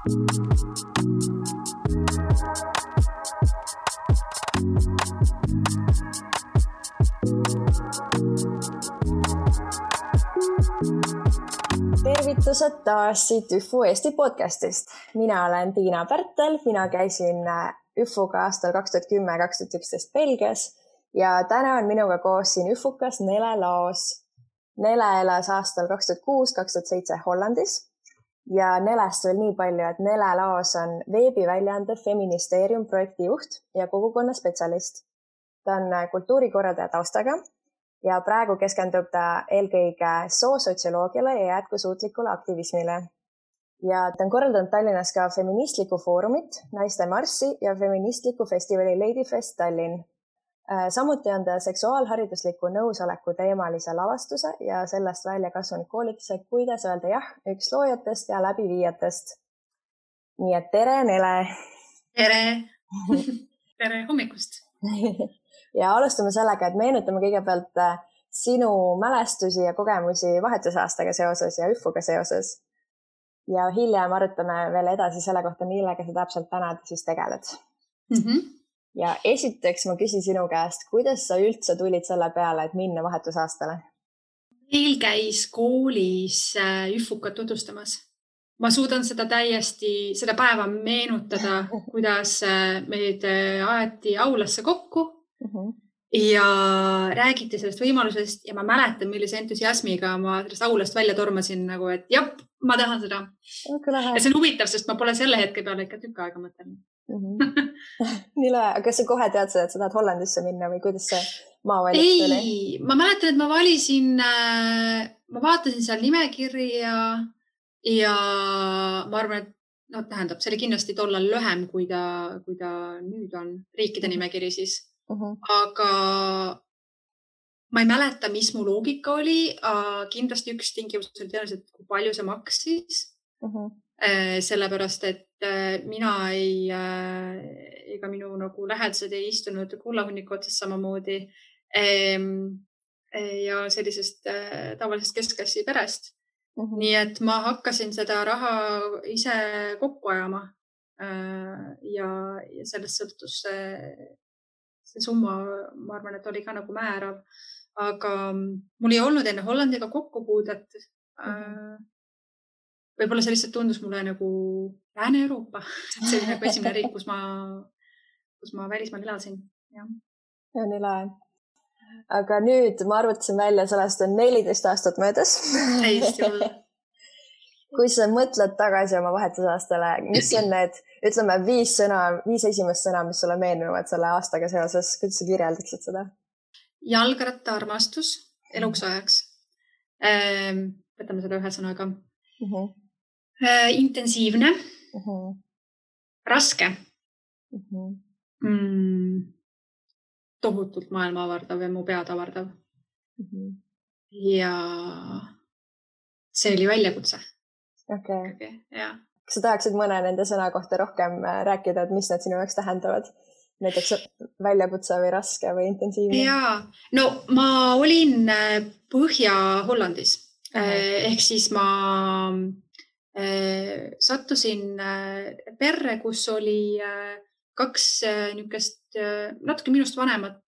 Tervitused taas siit ÜFU Eesti podcastist. Mina olen Tiina Pärtel, mina käisin ÜFUga aastal 2010-2011 Belgias ja täna on minuga koos siin ÜFUkas Nele Laos. Nele elas aastal 2006-2007 Hollandis ja Nelest veel nii palju, et Nele Laos on veebiväljaande Feministeerium projektijuht ja kogukonna spetsialist. Ta on kultuurikorraldaja taustaga ja praegu keskendub ta eelkõige soosotsioloogiale ja jätkusuutlikule aktivismile. Ja ta on korraldanud Tallinnas ka feministlikku foorumit, Naiste Marssi ja feministlikku festivali Ladyfest Tallinn. Samuti on ta seksuaalharidusliku nõusoleku teemalise lavastuse ja sellest välja kasvanud koolituse Kuidas öelda jah üks loojatest ja läbiviijatest. Nii et tere, Nele! Tere! Tere hommikust! Ja alustame sellega, et meenutame kõigepealt sinu mälestusi ja kogemusi vahetusaastaga seoses ja ÜFUga seoses. Ja hiljem arutame veel edasi selle kohta, millega sa täpselt täna siis tegeled. Ja esiteks ma küsin sinu käest, kuidas sa üldse tulid selle peale, et minna vahetusaastale? Meil käis koolis ÜFUkat tutvustamas. Ma suudan seda päeva meenutada, kuidas meid aeti aulasse kokku ja räägiti sellest võimalusest ja ma mäletan, millise entusiasmiga ma sellest aulast välja tormasin, nagu, et jah, ma tahan seda. Ja see on huvitav, sest ma pole selle hetke peale ikka tükk aega mõtelnud. Nii lahe, aga kas sa kohe teadsid, et sa tahad Hollandisse minna või kuidas see maavalik tuli? Ei, ma mäletan, et ma vaatasin seal nimekirja ja ma arvan, et see oli kindlasti tollal lühem, kui ta nüüd on riikide nimekiri siis. Aga ma ei mäleta, mis mu loogika oli. Kindlasti üks tingimus oli tõenäoliselt, kui palju see maksis. Sellepärast, et mina ega minu nagu lähedased ei istunud kullahunniku otsas samamoodi ja sellisest tavalisest keskklassi perest. Nii et ma hakkasin seda raha ise kokku ajama ja sellest sõltus see summa, ma arvan, et oli ka nagu määrav, aga mul ei olnud enne Hollandiga kokkupuudet. Võib-olla see lihtsalt tundus mulle nagu Lääne-Euroopa. See oli nagu esimene riik, kus ma välismaal elasin. Ja, nii lahe. Aga nüüd ma arvutasin välja, sellest on 14 aastat möödas. Täiesti olla. Kui sa mõtled tagasi oma vahetusaastale, mis on need, ütleme, 5 esimest sõna, mis sulle meenuvad selle aastaga seoses, kuidas sa kirjeldaksid seda? Jalgratta armastus eluks ajaks. Võtame seda ühe sõnaga. Intensiivne. Raske. Tohutult maailma avardav ja mu pead avardav. Ja see oli väljakutse. Okay. Ja. Kas sa tahaksid mõne nende sõna kohta rohkem rääkida, et mis need sinu jaoks tähendavad? Näiteks väljakutse või raske või intensiivne? Jaa, no ma olin Põhja-Hollandis. Ehk siis ma sattusin perre, kus oli 2 niukest natuke minust vanemat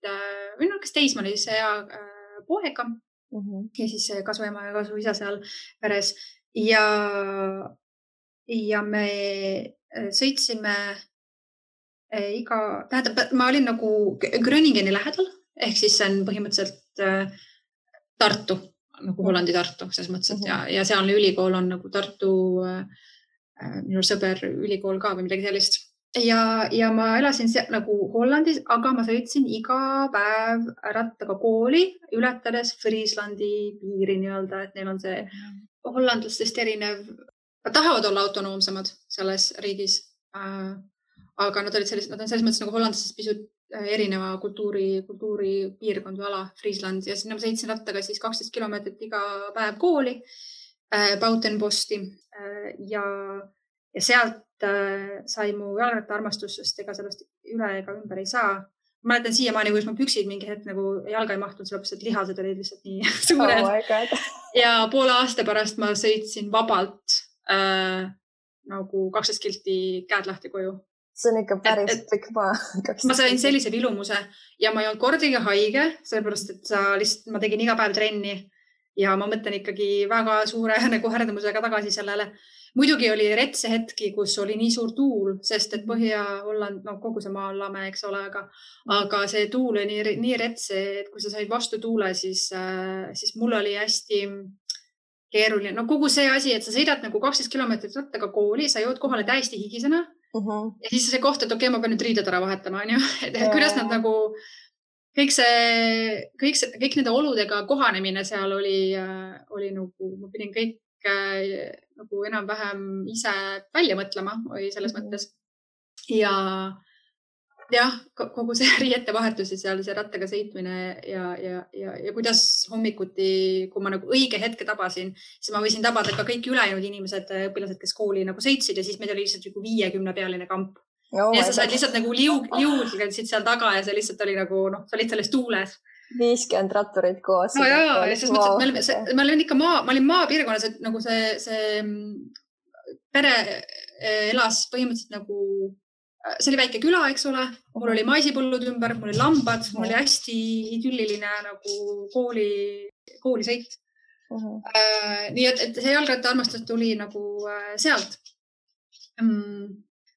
või niukest teismalise poega ja siis kasuema ja kasuisa seal peres. Ja me sõitsime ma olin nagu Gröningeni lähedal, ehk siis see on põhimõtteliselt Tartu, nagu Hollandi Tartu, selles mõttes, et ja sealne ülikool on nagu Tartu, minu sõber ülikool ka või midagi sellist. Ja ma elasin nagu Hollandis, aga ma sõitsin iga päev rattaga kooli, ületades Friislandi piiri nii-öelda, et neil on see hollandlastest erinev. Nad tahavad olla autonoomsemad selles riigis, aga nad on selles mõttes nagu hollandlastest pisut erineva kultuuri piirkond või ala, Friisland. Ja sinna ma sõitsin rattaga siis 12 kilomeetrit iga päev kooli, Bautenposti ja sealt sai mu jalgratta armastus, sest ega sellest üle ega ümber ei saa. Ma mäletan siiamaani, kuidas ma püksid mingi hetk nagu jalga ei mahtunud, sellepärast, et lihased olid lihtsalt nii suured. Ja poole aasta pärast ma sõitsin vabalt nagu 12 kilti käed lahti koju. See on ikka päris pikk maa. Ma sain sellise vilumuse ja ma ei olnud kordagi haige, sellepärast, et ma tegin iga päev trenni ja ma mõtlen ikkagi väga suure nagu härdamusega tagasi sellele. Muidugi oli retse hetki, kus oli nii suur tuul, sest et Põhja-Holland, no kogu see maa on lame, eks ole, aga see tuul oli nii retse, et kui sa said vastu tuule, siis mul oli hästi keeruline. No kogu see asi, et sa sõidad nagu 12 kilomeetrit rattaga kooli, sa jõud kohale täiesti higisena. Ja siis see koht, et okei, ma pean nüüd riided ära vahetama, on ju. Et kuidas nad nagu, kõik nende oludega kohanemine seal oli nagu, ma pidin kõik nagu enam-vähem ise välja mõtlema või selles mõttes. Ja kogu see riiete vahetus ja seal see rattaga sõitmine ja kuidas hommikuti, kui ma nagu õige hetke tabasin, siis ma võisin tabada ka kõik ülejäänud inimesed, õpilased, kes kooli nagu sõitsid ja siis meil oli lihtsalt 50-pealine kamp. Ja sa said lihtsalt nagu liugsid seal taga ja see lihtsalt oli nagu, sa olid selles tuules. 50 ratturit koos. No jaa, ja siis mõttes, et ma olin maapiirkonnas, et nagu see pere elas põhimõtteliselt nagu see oli väike küla, eks ole. Mul oli maisipõllud ümber, mul oli lambad, mul oli hästi idülliline nagu koolisõit. Nii et see jalgratta armastus tuli nagu sealt.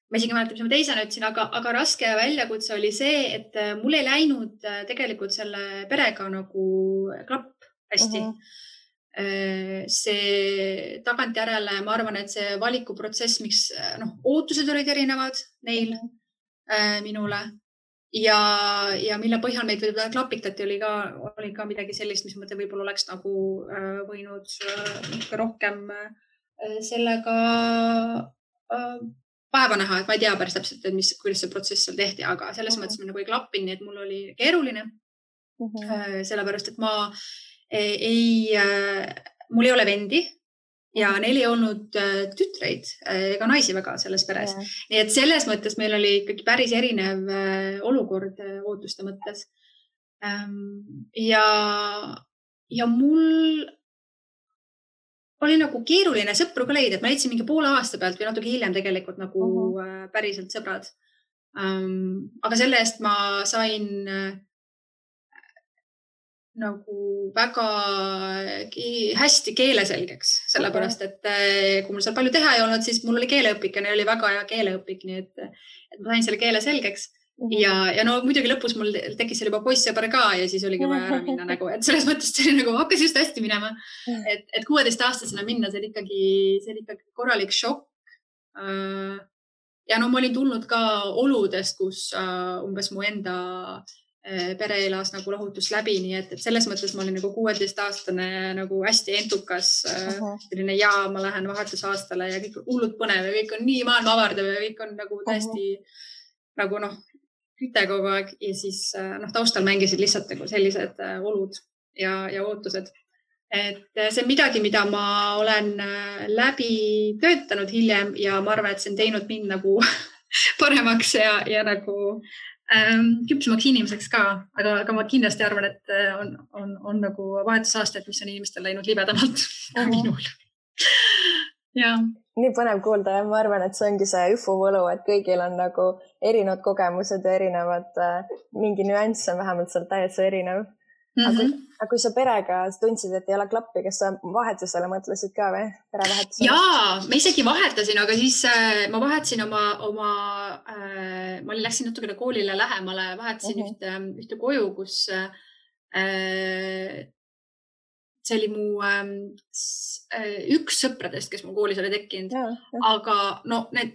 Ma isegi mäletan, mis ma teisena ütlesin, aga raske väljakutse oli see, et mul ei läinud tegelikult selle perega nagu klapp hästi. See tagantjärele, ma arvan, et see valikuprotsess, miks ootused olid erinevad neil minule ja mille põhjal meid võib-olla klapitati, oli ka midagi sellist, mis mõte võib-olla oleks nagu võinud rohkem sellega päeva näha, et ma ei tea päris täpselt, kuidas see protsess seal tehti, aga selles mõttes ma nagu ei klappinud, nii et mul oli keeruline. Sellepärast, et mul ei ole vendi ja neil ei olnud tütreid ega naisi väga selles peres. Nii et selles mõttes meil oli ikkagi päris erinev olukord ootuste mõttes. Ja mul oli nagu keeruline sõpru ka leida, et ma leidsin mingi poole aasta pealt või natuke hiljem tegelikult nagu päriselt sõbrad. Aga selle eest ma sain nagu väga hästi keeleselgeks, sellepärast, et kui mul seal palju teha ei olnud, siis mul oli keeleõpik ja neil oli väga hea keeleõpik, nii et ma sain selle keele selgeks. Ja no muidugi lõpus mul tekkis seal juba poissõber ka ja siis oligi vaja ära minna nagu, et selles mõttes see oli nagu hakkas just hästi minema, et 16-aastasena minna, see oli ikkagi korralik šokk. Ja no ma olin tulnud ka oludest, kus umbes mu enda pere elas nagu lahutus läbi, nii et selles mõttes ma olin nagu 16-aastane nagu hästi entukas, selline ma lähen vahetusaastale ja kõik on hullud põnev ja kõik on nii maailma avardav ja kõik on nagu täiesti nagu küte kogu aeg ja siis taustal mängisid lihtsalt nagu sellised olud ja ootused. Et see on midagi, mida ma olen läbi töötanud hiljem ja ma arvan, et see on teinud mind nagu paremaks ja nagu küpsemaks inimeseks ka, aga ma kindlasti arvan, et on nagu vahetusaasted, mis on inimestel läinud libedamalt minul. Ja. Nii põnev kuulda ja ma arvan, et see ongi see üfu võlu, et kõigil on nagu erinevad kogemused ja erinevad, mingi nüanss on vähemalt seal täiesti erinev. Aga kui sa perega tundsid, et ei ole klappi, kas sa vahetusele mõtlesid ka või? Jaa, ma isegi vahetasin, aga siis ma vahetasin ma läksin natukene koolile lähemale, vahetasin ühte koju, kus see oli mu üks sõpradest, kes mu koolis oli tekkinud, aga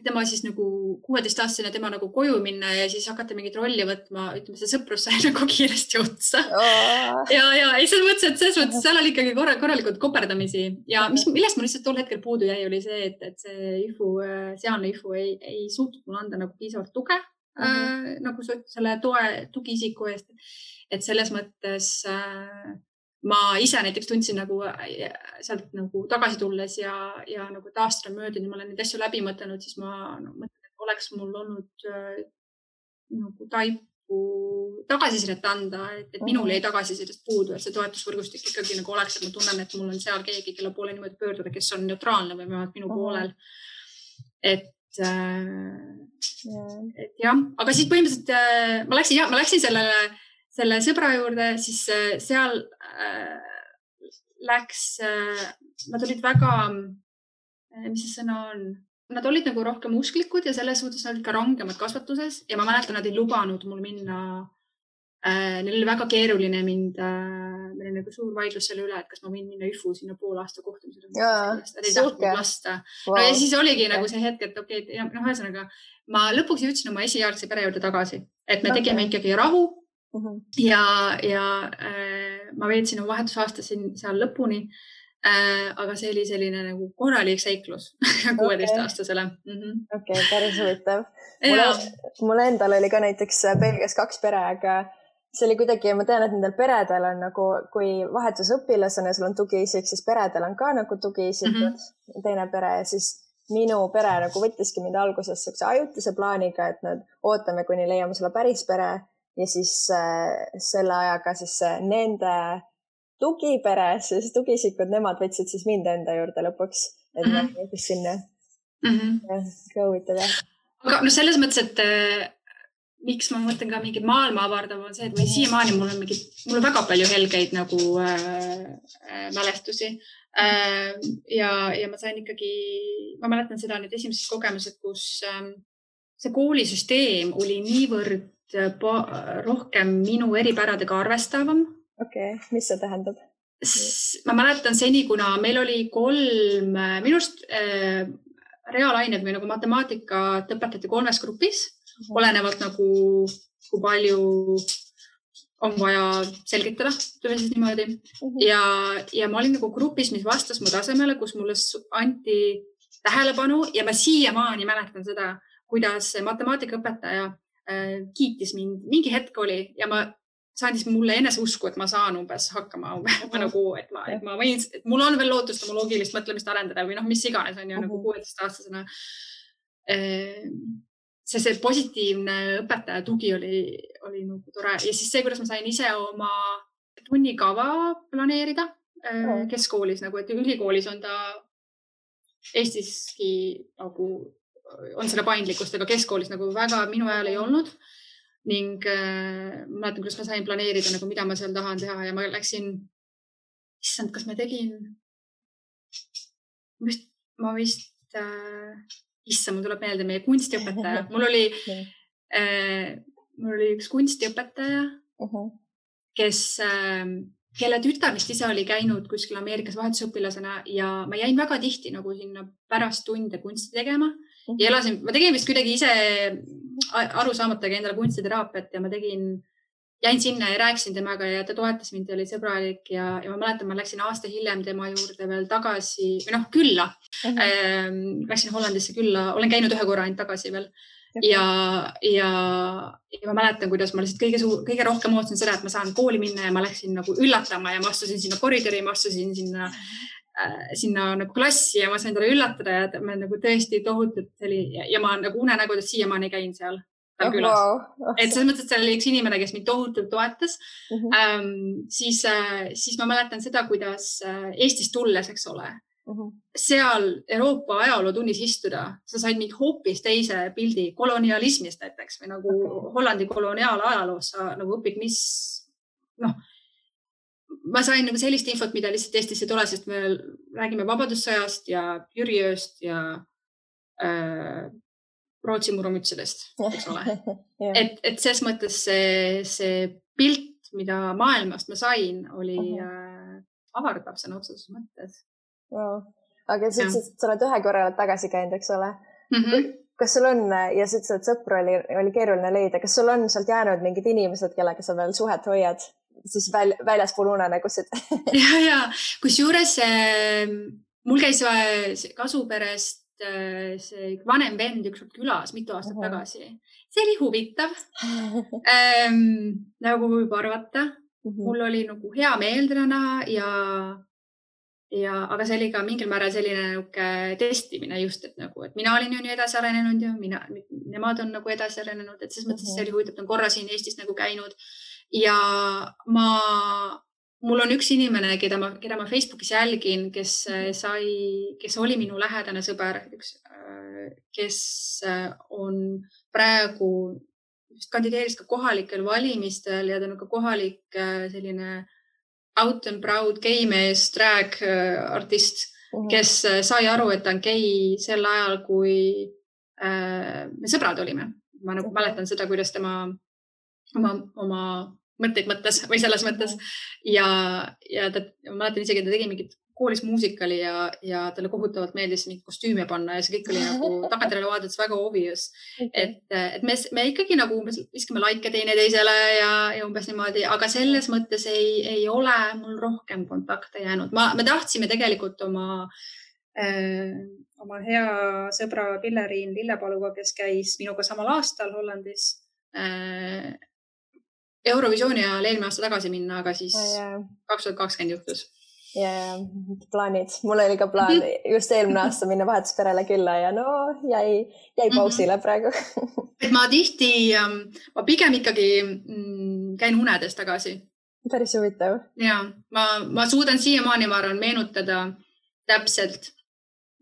tema siis nagu 16-aastasena tema nagu koju minna ja siis hakata mingit rolli võtma, ütleme, see sõprus sai nagu kiiresti otsa. Ja selles mõttes seal oli ikkagi korralikult koperdamisi ja millest ma lihtsalt tol hetkel puudu jäi, oli see, et see sealne IFU ei suutnud mulle anda nagu piisavalt tuge, nagu selle tugiisiku eest, et selles mõttes ma ise näiteks tundsin nagu sealt nagu tagasi tulles ja nagu aastal möödunud, ma olen neid asju läbi mõtelnud, siis ma mõtlen, et oleks mul olnud nagu taipu tagasisidet anda, et minul jäi tagasisidest puudu, et see toetusvõrgustik ikkagi nagu oleks, et ma tunnen, et mul on seal keegi, kelle poole niimoodi pöörduda, kes on neutraalne või minu poolel. et jah, aga siis põhimõtteliselt ma läksin selle sõbra juurde, siis seal nad olid väga, mis see sõna on? Nad olid nagu rohkem usklikud ja selles suhtes nad olid ka rangemad kasvatuses ja ma mäletan, nad ei lubanud mul minna. Neil oli väga keeruline meil oli nagu suur vaidlus selle üle, et kas ma võin minna üfu sinna pool aasta kohtumisele. Nad ei tahtnud lasta. Wow. No ja siis oligi nagu see hetk, et okei, ühesõnaga ma lõpuks jõudsin oma esijärgse pere juurde tagasi, et me tegime ikkagi rahu ja ma veetsin oma vahetusaasta seal lõpuni. Aga see oli selline nagu korralik seiklus 16-aastasele. Okei, päris huvitav. Mul endal oli ka näiteks Belgias 2 pere, aga see oli kuidagi, ma tean, et nendel peredel on nagu, kui vahetusõpilasena sul on tugiisik, siis peredel on ka nagu tugiisikud, teine pere ja siis minu pere nagu võttiski mind alguses sellise ajutise plaaniga, et nad ootame, kuni leiame sulle päris pere ja siis selle ajaga siis nende tugipere, siis tugisikud, nemad võtsid siis mind enda juurde lõpuks, et ma võttis sinna. Ka huvitav, jah. Aga no selles mõttes, et miks ma mõtlen ka mingid maailma avardav on see, et või siiamaani mul on väga palju helgeid nagu mälestusi. Ja ma sain ikkagi, ma mäletan seda nüüd esimesed kogemused, kus see koolisüsteem oli niivõrd rohkem minu eripäradega arvestavam. Okei, mis see tähendab? Ma mäletan seni, kuna meil oli 3, minust reaalained või nagu matemaatikat õpetati 3 grupis, olenevalt nagu kui palju on vaja selgitada, tuli siis niimoodi. Ja ma olin nagu grupis, mis vastas mu tasemele, kus mulle anti tähelepanu ja ma siiamaani mäletan seda, kuidas matemaatikaõpetaja kiitis mind. Mingi hetk oli ja see andis mulle eneseusku, et ma saan umbes hakkama, nagu, et ma võin, et mul on veel lootust oma loogilist mõtlemist arendada või mis iganes on ju nagu 16-aastasena. See positiivne õpetaja tugi oli nagu tore ja siis see, kuidas ma sain ise oma tunnikava planeerida keskkoolis, nagu, et ülikoolis on ta Eestiski nagu on selle paindlikkust, aga keskkoolis nagu väga minu ajal ei olnud. Ning ma mäletan, kuidas ma sain planeerida, nagu, mida ma seal tahan teha ja ma läksin, issand, kas ma tegin, ma vist, issand, mul tuleb meelde meie kunstiõpetaja. Mul oli üks kunstiõpetaja, kelle tütar vist ise oli käinud kuskil Ameerikas vahetusõpilasena ja ma jäin väga tihti nagu sinna pärast tunde kunsti tegema ja ma tegin vist kuidagi ise aru saamatagi endale kunstiteraapiat ja ma jäin sinna ja rääkisin temaga ja ta toetas mind ja oli sõbralik ja ma mäletan, ma läksin aasta hiljem tema juurde veel tagasi või külla. Läksin Hollandisse külla, olen käinud 1 korra ainult tagasi veel ja ma mäletan, kuidas ma lihtsalt kõige rohkem ootasin seda, et ma saan kooli minna ja ma läksin nagu üllatama ja ma astusin sinna koridori, ma astusin sinna nagu klassi ja ma sain talle üllatada ja ma nagu tõesti tohutult ja ma nagu unenägudes siiamaani käin seal külas. Et selles mõttes, et seal oli üks inimene, kes mind tohutult toetas. Siis ma mäletan seda, kuidas Eestis tulles, eks ole, seal Euroopa ajalootunnis istuda, sa said mind hoopis teise pildi kolonialismist näiteks või nagu Hollandi koloniaalajaloos sa nagu õpid, ma sain nagu sellist infot, mida lihtsalt Eestisse tule, sest me räägime Vabadussõjast ja Jüriööst ja Rootsi murumütsedest, eks ole. Et ses mõttes see pilt, mida maailmast ma sain, oli avardav sõna otseses mõttes. Wow. Aga sa ütlesid, et sa oled 1 korra tagasi käinud, eks ole? Kas sul on, ja sa ütlesid, et sõpru oli keeruline leida, kas sul on sealt jäänud mingid inimesed, kellega sa veel suhet hoiad? Siis väljaspool unenägusid. Ja. Kusjuures mul käis kasuperest see vanem vend ükskord külas mitu aastat tagasi. See oli huvitav. Nagu võib arvata. Mul oli nagu hea meel teda näha aga see oli ka mingil määral selline testimine just, et nagu, et mina olin ju nii edasi arenenud ja nemad on nagu edasi arenenud, et selles mõttes see oli huvitav, et on korra siin Eestis nagu käinud. Ja mul on üks inimene, keda ma Facebookis jälgin, kes oli minu lähedane sõber, üks kes on praegu kandideeris ka kohalikel valimistel ja ta on ka kohalik selline out and proud geimees, drag artist, kes sai aru, et ta on gei sel ajal, kui me sõbrad olime. Ma nagu mäletan seda, kuidas tema oma mõtteid mõttes või selles mõttes ja ta, ma mäletan isegi, et ta tegi mingit koolis muusikali ja talle kohutavalt meeldis mingi kostüüme panna ja see kõik oli nagu tagantjärele vaadates väga obvious. Et me ikkagi nagu viskame laike teineteisele ja umbes niimoodi, aga selles mõttes ei ole mul rohkem kontakte jäänud. Me tahtsime tegelikult oma hea sõbra Pilleriin Lillepaluga, kes käis minuga samal aastal Hollandis Eurovisiooni ajal eelmine aasta tagasi minna, aga siis 2020 juhtus. Ja plaanid. Mul oli ka plaan just eelmine aasta minna vahetusperele külla ja no jäi pausile praegu. Et ma tihti, ma pigem ikkagi käin unedes tagasi. Päris huvitav. Ja, ma suudan siiamaani, ma arvan, meenutada täpselt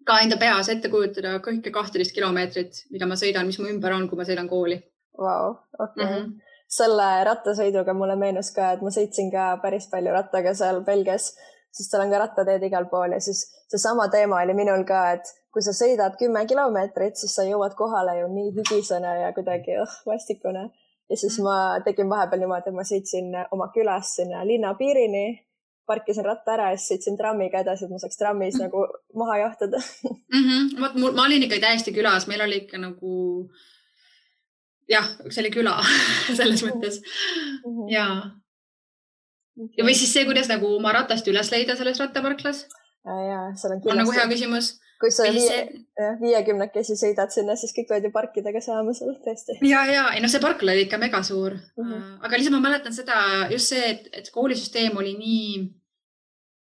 ka enda peas ette kujutada kõike 12 kilomeetrit, mida ma sõidan, mis mu ümber on, kui ma sõidan kooli. Vau, okei. Selle rattasõiduga mulle meenus ka, et ma sõitsin ka päris palju rattaga seal Belgias, sest seal on ka rattateed igal pool ja siis see sama teema oli minul ka, et kui sa sõidad 10 kilomeetrit, siis sa jõuad kohale ju nii higisena ja kuidagi vastikune. Ja siis ma tegin vahepeal niimoodi, et ma sõitsin oma külas sinna linna piirini, parkisin ratta ära ja siis sõitsin trammiga edasi, et ma saaks trammis nagu maha jahtada. Ma olin ikka täiesti külas, meil oli ikka nagu jah, see oli küla selles mõttes. Ja või siis see, kuidas nagu oma ratast üles leida selles rattaparklas? Jaa, seal on kindlasti. On nagu hea küsimus. Kui sa 50 sõidad sinna, siis kõik võid ju parkidega saama seal tõesti. Ja, ei, no see parkla oli ikka mega suur. Aga lihtsalt ma mäletan seda, just see, et koolisüsteem oli nii,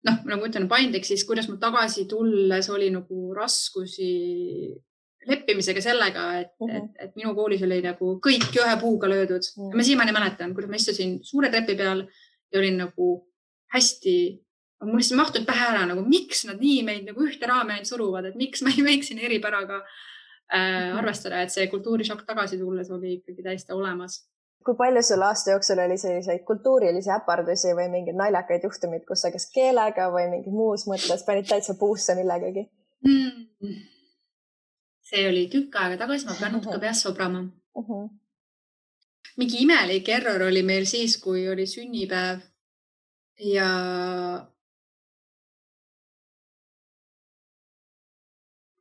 nagu ütlen, paindlik, siis kuidas mul tagasi tulles oli nagu raskusi leppimisega sellega, et minu koolis oli nagu kõik ühe puuga löödud. Ma siiamaani mäletan, kuidas ma istusin suure trepi peal ja olin nagu hästi, mul lihtsalt mahtud pähe ära, nagu miks nad nii meid nagu ühte raame suruvad, et miks ma ei võiks siin eripäraga arvestada, et see kultuurishokk tagasi tulles oli ikkagi täiesti olemas. Kui palju sul aasta jooksul oli selliseid kultuurilisi äpardusi või mingid naljakaid juhtumid, kus sa kas keelega või mingi muus mõttes panid täitsa puusse millegagi? See oli tükk aega tagasi, ma pean natuke peas sobrama. Mingi imelik error oli meil siis, kui oli sünnipäev ja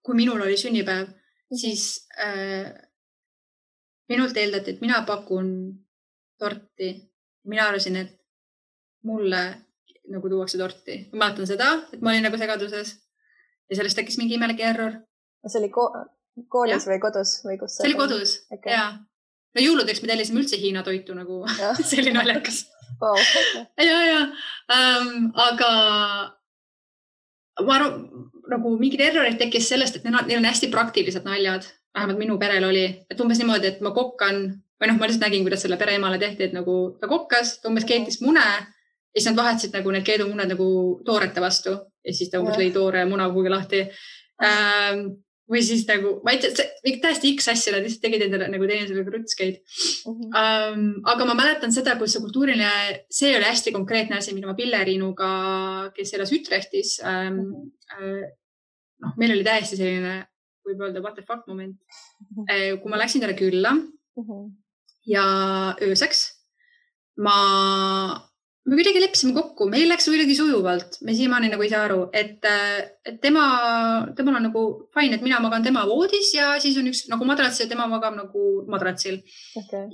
kui minul oli sünnipäev, siis minult eeldati, et mina pakun torti. Mina arvasin, et mulle nagu tuuakse torti. Ma mäletan seda, et ma olin nagu segaduses ja sellest tekkis mingi imelik error. See oli koolis või kodus? Või kus see oli kodus, jaa. No jõuludeks me tellisime üldse Hiina toitu nagu, see oli naljakas. Wow. Ja. Aga ma arvan, nagu mingid errorid tekkis sellest, et neil on hästi praktilised naljad. Vähemalt minu perel oli, et umbes niimoodi, et ma kokkan, või ma lihtsalt nägin, kuidas selle pereemale tehti, et nagu ta kokkas, ta umbes keetis mune ja siis nad vahetasid nagu need keedumuned nagu toorete vastu ja siis ta umbes lõi toore muna kuhugi lahti. Või siis nagu, ma ei tea, täiesti X asja, nad lihtsalt tegid endale nagu teinesele krutskeid. Aga ma mäletan seda, kus see kultuuriline, see oli hästi konkreetne asi, mida ma Pilleriinuga, kes elas Ütrechtis, meil oli täiesti selline, võib öelda, what the fuck moment. Kui ma läksin talle külla ja ööseks, me kuidagi leppisime kokku, meil läks kuidagi sujuvalt, me siiamaani nagu ei saa aru, et temal on nagu fine, et mina magan tema voodis ja siis on üks nagu madrats ja tema magab nagu madratsil.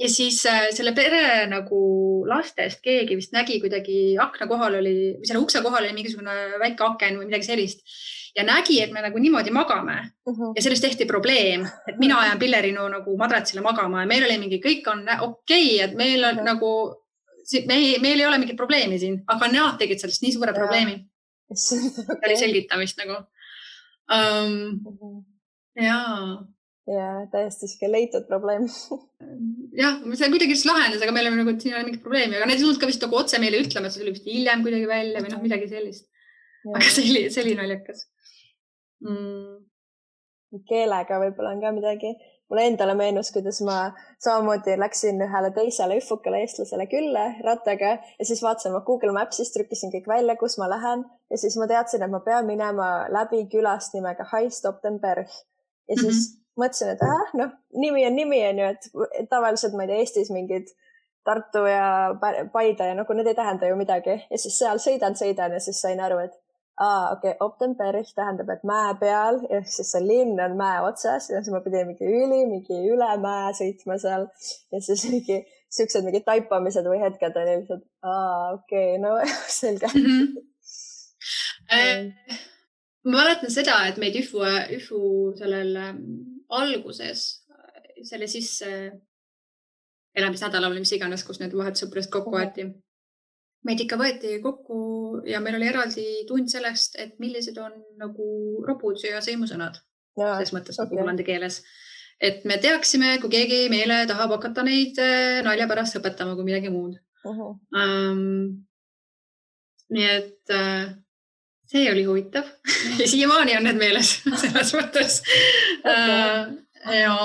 Ja siis selle pere nagu lastest keegi vist nägi kuidagi akna kohal oli, või selle ukse kohal oli mingisugune väike aken või midagi sellist ja nägi, et me nagu niimoodi magame ja sellest tehti probleem, et mina ajan Pilleriinu nagu madratsile magama ja meil oli mingi, kõik on okei, et meil on nagu meil ei ole mingit probleemi siin, aga nad tegid sellest nii suure probleemi. See oli selgitamist nagu. Ja täiesti siuke leitud probleem. Jah, see kuidagi lahendas, aga meil on nagu, siin ei ole mingit probleemi, aga need ei tulnud ka vist nagu otse meile ütlema, et see oli vist hiljem kuidagi välja või midagi sellist. Aga see oli naljakas. keelega võib-olla on ka midagi. Mulle endale meenus, kuidas ma samamoodi läksin ühele teisele üfukale eestlasele külla rattaga ja siis vaatasin ma Google Mapsist, trükkisin kõik välja, kus ma lähen ja siis ma teadsin, et ma pean minema läbi külast nimega Haistoptenberg ja siis mõtlesin, et nimi on ju, et tavaliselt ma ei tea, Eestis mingid Tartu ja Paide ja nagu need ei tähenda ju midagi ja siis seal sõidan ja siis sain aru, et okei, Optenberg tähendab, et mäe peal, ehk siis see linn on mäe otsas ja siis ma pidin mingi üle mäe sõitma seal ja siis siuksed mingid taipamised või hetked oli lihtsalt, okei, no selge. Ma mäletan seda, et meid üfu sellel alguses, selle sisse elamisnädalal või mis iganes, kus need vahetussõpradest kokku võeti. Meid ikka võeti kokku ja meil oli eraldi tund sellest, et millised on nagu ropud ja sõimusõnad. Selles mõttes nagu hollandi keeles. Et me teaksime, kui keegi meile tahab hakata neid nalja pärast õpetama kui midagi muud. Nii et see oli huvitav. Ja siiamaani on need meeles selles mõttes. Ja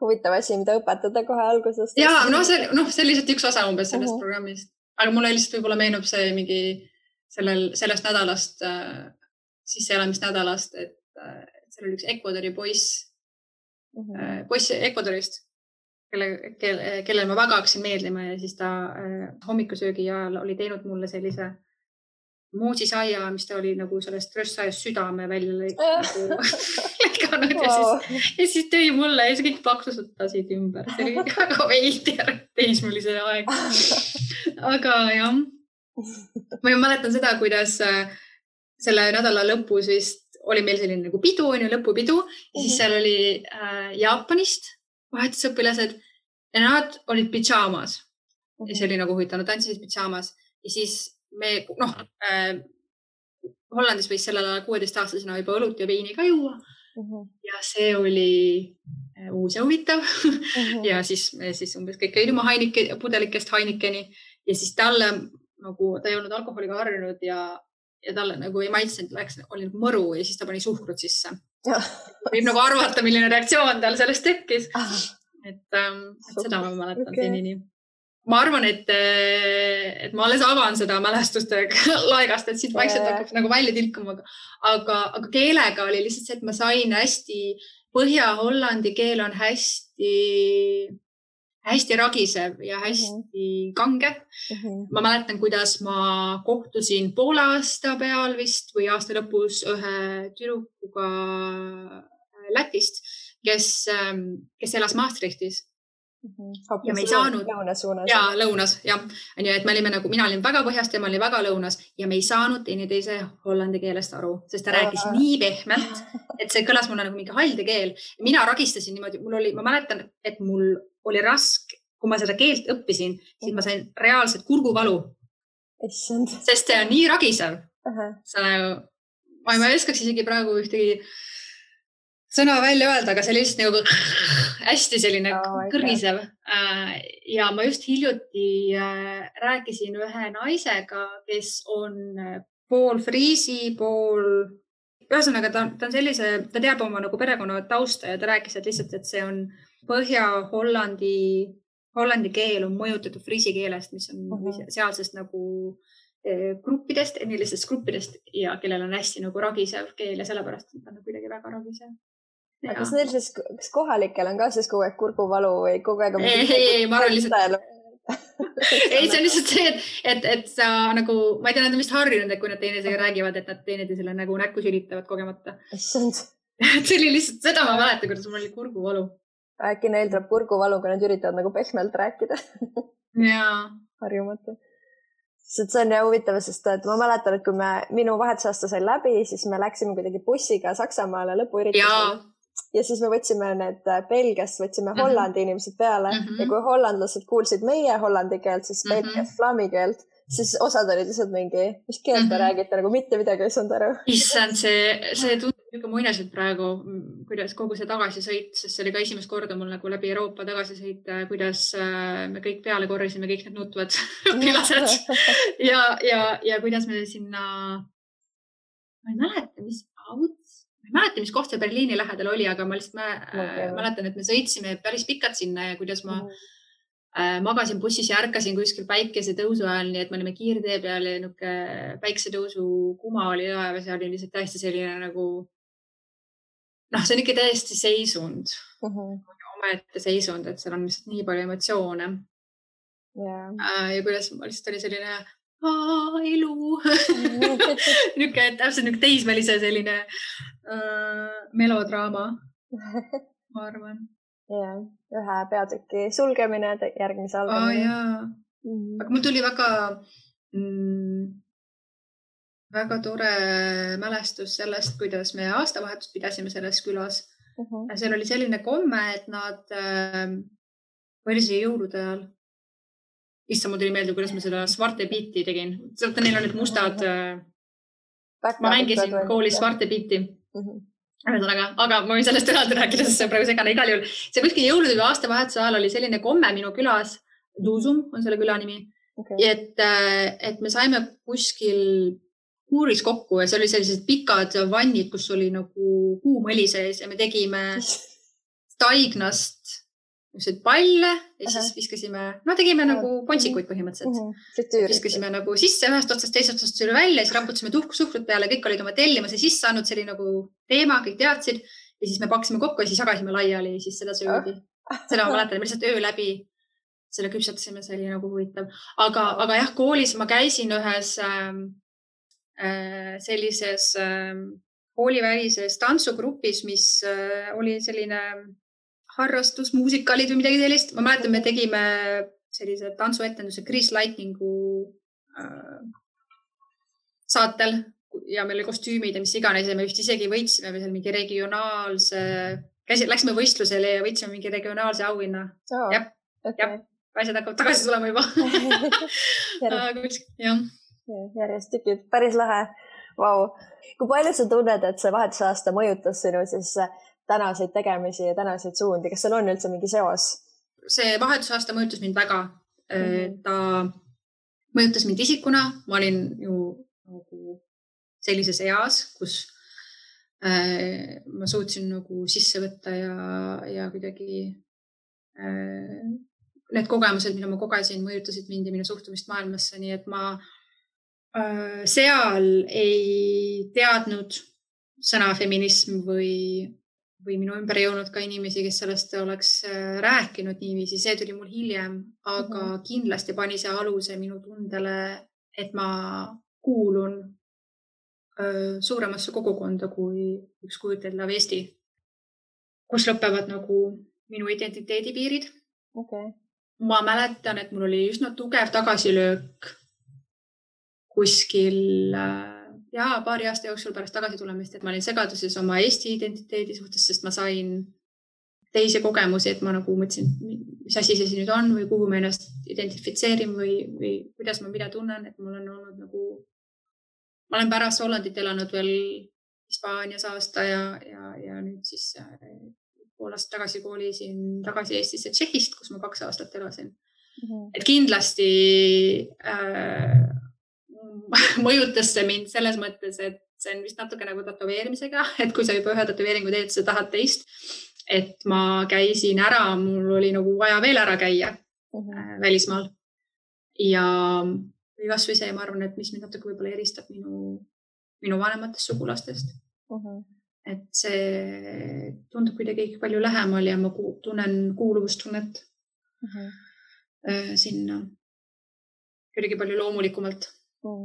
huvitav asi, mida õpetada kohe algusest. Ja, see lihtsalt üks osa umbes sellest programmist. Aga mulle lihtsalt võib-olla meenub see mingi sellest nädalast, sisseelamisnädalast, et seal oli üks Ecuadori poiss Ecuadorist, kellel ma väga hakkasin meeldima ja siis ta hommikusöögi ajal oli teinud mulle sellise moosisaia, mis ta oli nagu sellest röstsaiast südame välja lõikanud ja siis tõi mulle ja siis kõik paksutasid ümber. See oli väga veider teismelise aeg. Aga jah, ma mäletan seda, kuidas selle nädala lõpus vist oli meil selline nagu pidu, lõpupidu ja siis seal oli Jaapanist vahetusõpilased ja nad olid pidžaamas. Ja see oli nagu huvitav, nad tantsisid pidžaamas ja siis me, Hollandis võis sellel ajal 16-aastasena juba õlut ja veini ka juua ja see oli uus ja huvitav ja siis me umbes kõik käiduma pudelikest Heinikeni ja siis talle nagu, ta ei olnud alkoholiga harjunud ja talle nagu ei maitsenud, oli nagu mõru ja siis ta pani suhkrut sisse. Võib nagu arvata, milline reaktsioon tal sellest tekkis. Et seda ma mäletan senini. Ma arvan, et ma alles avan seda mälestuste laegast, et siit vaikselt hakkab nagu välja tilkuma. Aga keelega oli lihtsalt see, et ma sain hästi, Põhja-Hollandi keel on hästi ragisev ja hästi kange. Ma mäletan, kuidas ma kohtusin poole aasta peal vist või aasta lõpus ühe tüdrukuga Lätist, kes elas Maastrichtis. Ja me ei saanud lõunas, jah. Et me olime nagu, mina olin väga põhjast ja ma olin väga lõunas ja me ei saanud teineteise hollandi keelest aru, sest ta rääkis nii pehmelt, et see kõlas mulle nagu mingi halde keel. Mina ragistasin niimoodi, ma mäletan, et mul oli raske, kui ma seda keelt õppisin, siis ma sain reaalselt kurguvalu, sest see on nii ragisev. Ma ei oskaks isegi praegu ühtegi sõna välja öelda, aga see oli lihtsalt nagu hästi selline kõrgisev. Ja ma just hiljuti rääkisin ühe naisega, kes on pool friisi, ühesõnaga ta on sellise, ta teab oma nagu perekonna tausta ja ta rääkis, et lihtsalt, et see on Põhja-Hollandi keel on mõjutatud friisi keelest, mis on sealsest nagu gruppidest, etnilistest gruppidest ja kellel on hästi nagu ragisev keel ja sellepärast on ta kuidagi väga ragisev. Ja. Kas neil siis, kas kohalikel on ka siis kogu aeg kurguvalu või kogu aeg on... Ei, ma arvan lihtsalt... Ei, see on lihtsalt see, et sa nagu, ma ei tea, nad on vist harjunud, et kui nad teineteisega räägivad, et nad teineteisele nagu näkku sülitavad kogemata. See oli lihtsalt, seda ma mäletan, kuidas mul oli kurguvalu. Äkki neil tuleb kurguvalu, kui nad üritavad nagu pehmelt rääkida. Jaa. Harjumatu. See on jah huvitav, sest ma mäletan, et kui minu vahetusaasta sai läbi, siis me läksime kuidagi bussiga Saksamaale lõpuüritusele. Ja siis me võtsime need Belgiast, võtsime Hollandi inimesed peale ja kui hollandlased kuulsid meie hollandi keelt, siis Belgias flami keelt, siis osad olid lihtsalt mingi, mis keelt te räägite, nagu mitte midagi ei saanud aru. Issand, see tundub niisugune muinaselt praegu, kuidas kogu see tagasisõit, sest see oli ka esimest korda mul nagu läbi Euroopa tagasisõit, kuidas me kõik peale korrisime, kõik need nutvad pilased ja kuidas me sinna, ma ei mäleta, mis auts, mäleta, mis koht see Berliini lähedal oli, aga ma lihtsalt mäletan, et me sõitsime päris pikalt sinna ja kuidas ma magasin bussis ja ärkasin kuskil päikese tõusu ajal, nii et me olime kiirtee peal ja niuke päiksetõusu kuma oli laev ja see oli lihtsalt täiesti selline nagu, see on ikka täiesti seisund, omaette seisund, et seal on lihtsalt nii palju emotsioone. Ja kuidas ma lihtsalt oli selline elu. Niuke täpselt niuke teismelise selline melodraama, ma arvan. Ühe peatüki sulgemine, järgmise algamine. Aga mul tuli väga tore mälestus sellest, kuidas me aastavahetust pidasime selles külas. Seal oli selline komme, et nad oli see jõulude ajal. Issa, mul tuli meelde, kuidas ma seda Svarte Bitti tegin. Neil on need mustad. Ma mängisin koolis Svarte Bitti. Aga ma võin sellest eraldi rääkida, sest see on praegu segane igal juhul. See kuskil jõulude või aastavahetuse ajal oli selline komme minu külas, Duusum on selle küla nimi, et me saime kuskil kuuris kokku ja see oli sellised pikad vannid, kus oli nagu kuumõli sees ja me tegime taignast palle ja siis viskasime, tegime nagu pontsikuid põhimõtteliselt. Viskasime nagu sisse ühest otsast, teisest otsast üle välja ja siis raputasime suhkrut peale, kõik olid oma tellimuse sisse saanud, see oli nagu teema, kõik teadsid ja siis me paksime kokku ja siis jagasime laiali ja siis seda söödi. Seda ma mäletan, me lihtsalt öö läbi selle küpsatasime, see oli nagu huvitav. Aga jah, koolis ma käisin ühes sellises koolivälises tantsugrupis, mis oli selline harrastus, muusikaalid või midagi sellist. Ma mäletan, me tegime sellise tantsuetenduse Grease Lightningu saatel ja meil oli kostüümid ja mis iganes ja me vist isegi võitsime seal mingi regionaalse, läksime võistlusele ja võitsime mingi regionaalse auhinna. Jah, asjad hakkavad tagasi tulema juba. Järjest tükid, päris lahe. Vau. Kui palju sa tunned, et see vahetusaasta mõjutas sinu siis tänaseid tegemisi ja tänaseid suundi? Kas seal on üldse mingi seos? See vahetusaasta mõjutas mind väga. Ta mõjutas mind isikuna. Ma olin ju nagu sellises eas, kus ma suutsin nagu sisse võtta ja kuidagi need kogemused, mida ma kogesin, mõjutasid mind ja minu suhtumist maailmasse. Nii et ma seal ei teadnud sõna feminism või minu ümber ei olnud ka inimesi, kes sellest oleks rääkinud niiviisi. See tuli mul hiljem, aga kindlasti pani see aluse minu tundele, et ma kuulun suuremasse kogukonda kui üks kujuteldav Eesti, kus lõpevad nagu minu identiteedipiirid. Ma mäletan, et mul oli üsna tugev tagasilöök kuskil paari aasta jooksul pärast tagasi tulemist, et ma olin segaduses oma Eesti identiteedi suhtes, sest ma sain teisi kogemusi, et ma nagu mõtlesin, mis asi see nüüd on või kuhu ma ennast identifitseerin või kuidas ma mida tunnen, et mul on olnud nagu, ma olen pärast Hollandit elanud veel Hispaanias aasta ja nüüd siis pool aastat tagasi koolisin tagasi Eestisse Tšehhist, kus ma 2 aastat elasin. Et kindlasti mõjutas see mind selles mõttes, et see on vist natuke nagu tätoveerimisega, et kui sa juba ühe tätoveeringu teed, sa tahad teist, et ma käisin ära, mul oli nagu vaja veel ära käia välismaal ja kas või see, ma arvan, et mis mind natuke võib-olla eristab minu vanematest sugulastest. Et see tundub kuidagi palju lähemal ja ma tunnen kuuluvustunnet sinna kuidagi palju loomulikumalt.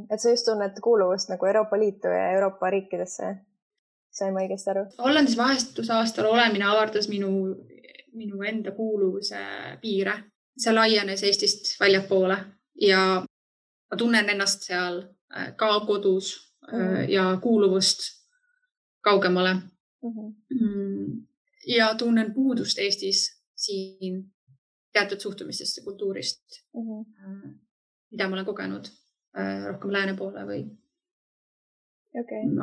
Et sa just tunned kuuluvust nagu Euroopa Liitu ja Euroopa riikidesse. Sain ma õigesti aru? Hollandis vahetusaastal olemine avardas minu enda kuuluvuse piire. See laienes Eestist väljapoole ja ma tunnen ennast seal ka kodus ja kuuluvust kaugemale. Ja tunnen puudust Eestis siin teatud suhtumistest ja kultuurist, mida ma olen kogenud rohkem lääne poole või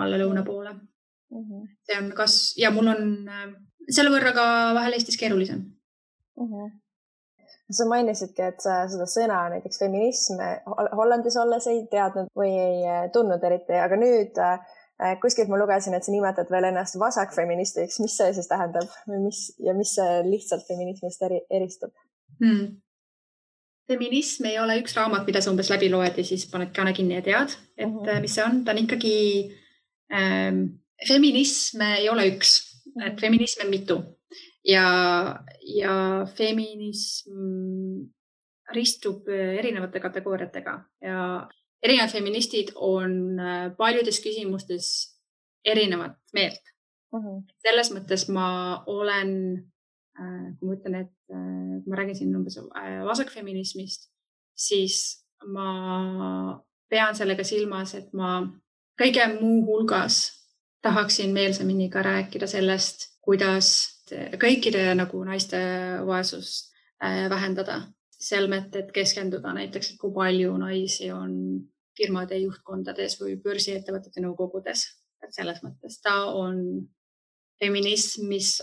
alla lõuna poole. See on ja mul on selle võrra ka vahel Eestis keerulisem. Sa mainisidki, et sa seda sõna, näiteks feminism, Hollandis olles ei teadnud või ei tundnud eriti, aga nüüd kuskilt ma lugesin, et sa nimetad veel ennast vasakfeministiks. Mis see siis tähendab või mis see lihtsalt feminismist eristub? Feminism ei ole üks raamat, mida sa umbes läbi loed ja siis paned kaane kinni ja tead, et mis see on. Ta on ikkagi, feminism ei ole üks, et feminism on mitu ja feminism ristub erinevate kategooriatega ja erinevad feministid on paljudes küsimustes erinevat meelt. Selles mõttes ma olen, kui ma ütlen, et kui ma räägin siin umbes vasakfeminismist, siis ma pean sellega silmas, et ma kõige muu hulgas tahaksin meelsamini ka rääkida sellest, kuidas kõikide nagu naiste vaesust vähendada. Selmet, et keskenduda näiteks, et kui palju naisi on firmade juhtkondades või börsiettevõtete nõukogudes. Et selles mõttes ta on feminism, mis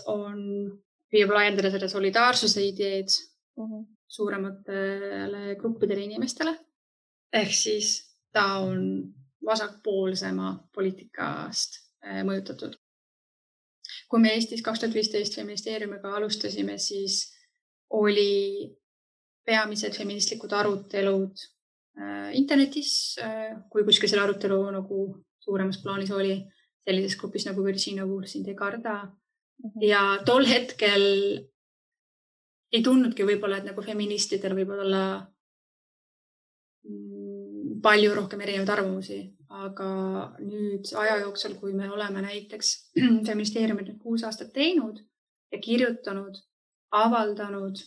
püüab laiendada seda solidaarsuse ideed suurematele gruppidele inimestele. Ehk siis ta on vasakpoolsema poliitikast mõjutatud. Kui me Eestis 2015 feministeeriumiga alustasime, siis oli peamised feministlikud arutelud internetis, kui kuskil selle arutelu nagu suuremas plaanis oli, sellises grupis nagu Virginia Woolf sind ei karda. Ja tol hetkel ei tundnudki võib-olla, et nagu feministidel võib olla palju rohkem erinevaid arvamusi, aga nüüd aja jooksul, kui me oleme näiteks feministeeriumit 6 aastat teinud ja kirjutanud, avaldanud,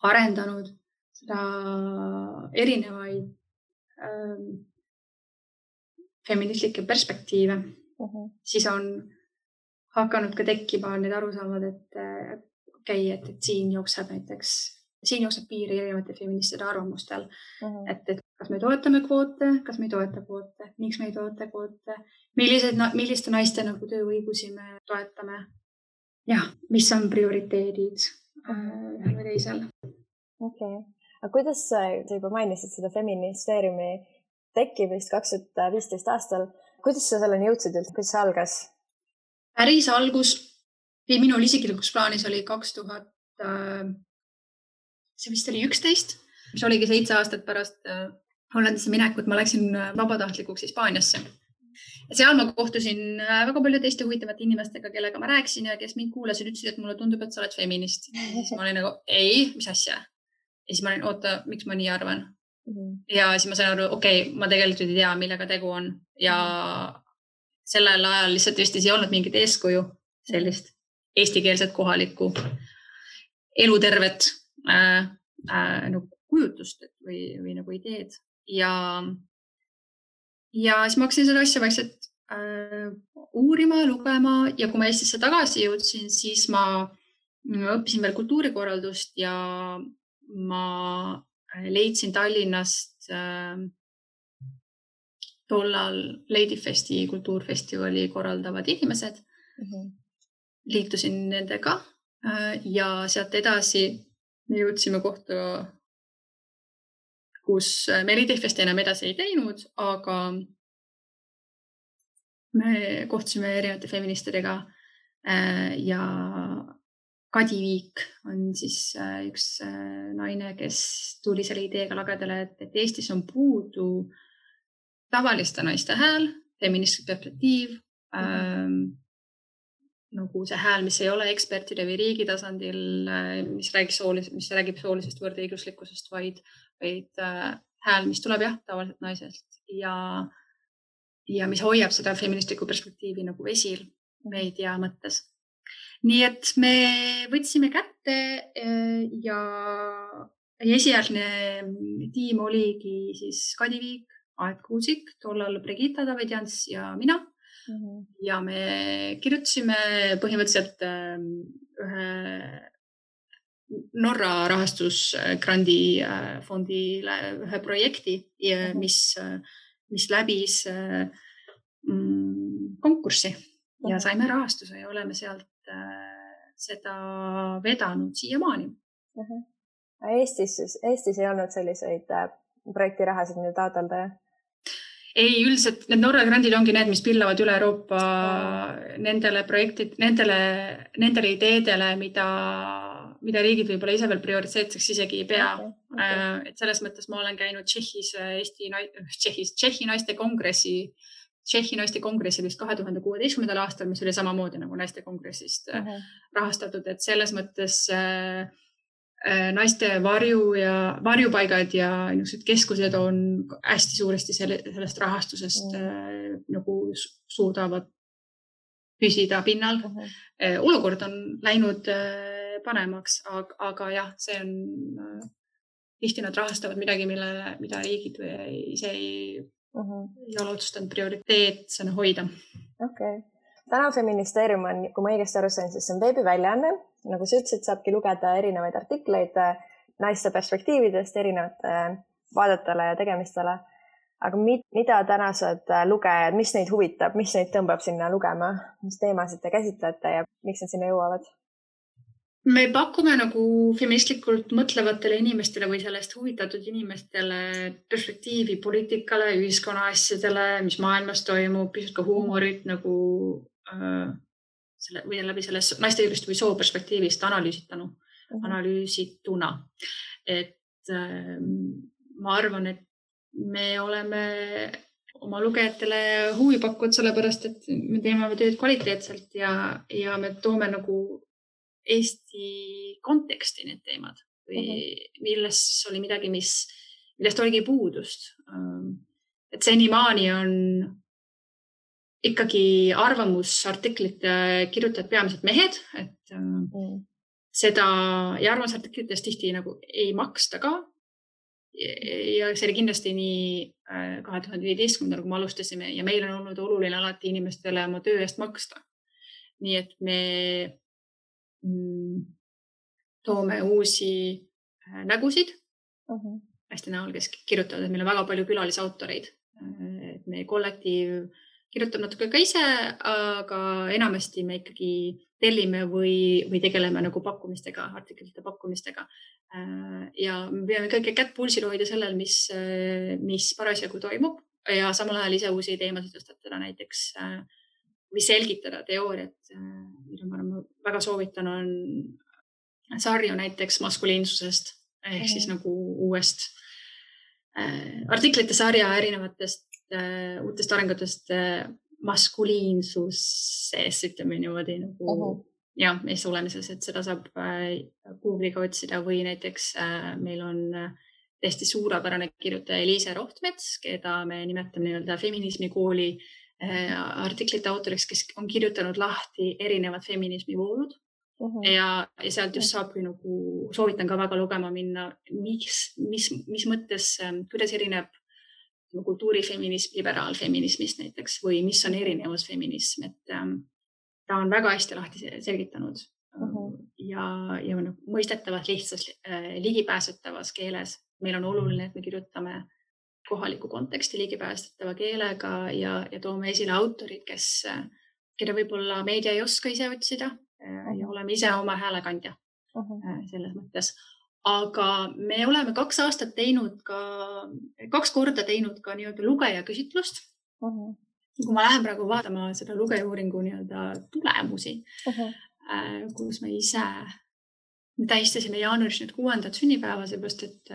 arendanud seda erinevaid feministlikke perspektiive, siis on hakanud ka tekkima need arusaamad, et siin jookseb piiri erinevate feministide arvamustel, et kas me toetame kvoote, kas me ei toeta kvoote, miks me ei toeta kvoote, milliste naiste nagu tööõigusi me toetame ja mis on prioriteedid ühel või teisel. Okei. Aga kuidas sa juba mainisid seda feministeeriumi tekkimist 2015 aastal? Kuidas sa selleni jõudsid üldse? Kuidas see algas? Päris algus minul isiklikuks plaanis oli 2000, see vist oli 11, mis oligi 7 aastat pärast Hollandisse minekut. Ma läksin vabatahtlikuks Hispaaniasse. Ja seal ma kohtusin väga palju teiste huvitavate inimestega, kellega ma rääkisin ja kes mind kuulasid, ütlesid, et mulle tundub, et sa oled feminist. Siis ma olin nagu, ei, mis asja? Ja siis ma olin, oota, miks ma nii arvan? Ja siis ma sain aru, ma tegelikult ei tea, millega tegu on. Ja sellel ajal lihtsalt vist ei olnud mingit eeskuju, sellist eestikeelset kohalikku elutervet nagu kujutust või nagu ideed. Ja siis ma hakkasin seda asja vaikselt uurima, lugema ja kui ma Eestisse tagasi jõudsin, siis ma õppisin veel kultuurikorraldust ja ma leidsin Tallinnast tollal Ladyfesti kultuurfestivali korraldavad inimesed. Liitusin nendega ja sealt edasi me jõudsime kohta, kus me Ladyfesti enam edasi ei teinud, aga me kohtusime erinevate feministidega ja Kadi Viik on siis üks naine, kes tuli selle ideega lagedale, et Eestis on puudu tavaliste naiste hääl, feministlik perspektiiv, nagu see hääl, mis ei ole ekspertide või riigi tasandil, mis räägib soolisest võrdõiguslikkusest, vaid hääl, mis tuleb tavaliselt naisest ja mis hoiab seda feministlikku perspektiivi nagu esil meedia mõttes. Nii et me võtsime kätte ja esialgne tiim oligi siis Kadi Viik, Aet Kuusik, tollal Brigitta Davidjans ja mina. Ja me kirjutasime põhimõtteliselt ühe Norra rahastusgrandi fondile ühe projekti, mis läbis konkurssi ja saime rahastuse ja oleme sealt seda vedanud siiamaani. Eestis ei olnud selliseid projektirahasid, mida taotleda? ei, üldiselt need Norra grandid ongi need, mis pillavad üle Euroopa nendele nendele ideedele, mida riigid võib-olla ise veel prioriteetseks isegi ei pea. Et selles mõttes ma olen käinud Tšehhi naiste kongressil vist 2016. aastal, mis oli samamoodi nagu naiste kongressist rahastatud, et selles mõttes naiste varjupaigad ja niisugused keskused on hästi suuresti sellest rahastusest nagu suudavad püsida pinnal. Olukord on läinud paremaks, aga jah, see on tihti nad rahastavad midagi, mida riigid ise ei ole otsustanud prioriteetsena hoida. Okay. Täna Feministeerium on, kui ma õigesti aru sain, siis see on veebiväljaanne. Nagu sa ütlesid, saabki lugeda erinevaid artikleid naiste perspektiividest, erinevate vaadetele ja tegemistele. Aga mida tänased lugejad, mis neid huvitab, mis neid tõmbab sinna lugema, mis teemasid te käsitlete ja miks nad sinna jõuavad? Me pakume nagu feministlikult mõtlevatele inimestele või sellest huvitatud inimestele perspektiivi poliitikale, ühiskonna asjadele, mis maailmas toimub, pisut ka huumorit nagu või läbi selles naistejuurist või soo perspektiivist analüüsituna. Et ma arvan, et me oleme oma lugejatele huvi pakkunud sellepärast, et me teeme tööd kvaliteetselt ja me toome nagu Eesti konteksti need teemad või milles oli midagi, millest oligi puudust. Et senimaani on ikkagi arvamusartiklite kirjutajad peamiselt mehed, et seda ja arvamusartiklitest tihti nagu ei maksta ka. Ja see oli kindlasti nii 2015, kui me alustasime ja meil on olnud oluline alati inimestele oma töö eest maksta. Nii et me toome uusi nägusid hästi näol, kes kirjutavad, et meil on väga palju külalisautoreid. Et meie kollektiiv kirjutab natuke ka ise, aga enamasti me ikkagi tellime või tegeleme nagu pakkumistega, artiklite pakkumistega. Ja me peame kõige kätt pulsil hoida sellel, mis parasjagu toimub ja samal ajal ise uusi teemasid tõstatada näiteks või selgitada teooriat, mida ma väga soovitan, on sarju näiteks maskuliinsusest ehk siis nagu uuest artiklite sarja erinevatest uutest arengutest maskuliinsuses, ütleme niimoodi nagu ja meeste olemises, et seda saab Google'iga otsida või näiteks meil on täiesti suurepärane kirjutaja Eliise Rohtmets, keda me nimetame nii-öelda feminismikooli artiklite autoriks, kes on kirjutanud lahti erinevad feminismivoolud ja sealt just saabki nagu, soovitan ka väga lugema minna, mis mõttes, kuidas erineb kultuurifeminism liberaalfeminismist näiteks või mis on erinevus feminism, et ta on väga hästi lahti selgitanud ja mõistetavas lihtsas ligipääsetavas keeles. Meil on oluline, et me kirjutame kohaliku konteksti ligipääsetava keelega ja toome esile autorid, keda võib-olla meedia ei oska ise otsida ja oleme ise oma häälekandja selles mõttes. Aga me oleme 2 korda teinud ka nii-öelda lugejaküsitlust. Kui ma lähen praegu vaatama seda lugejauuringu nii-öelda tulemusi, kus me ise tähistasime jaanuaris nüüd 6. sünnipäeva, seepärast, et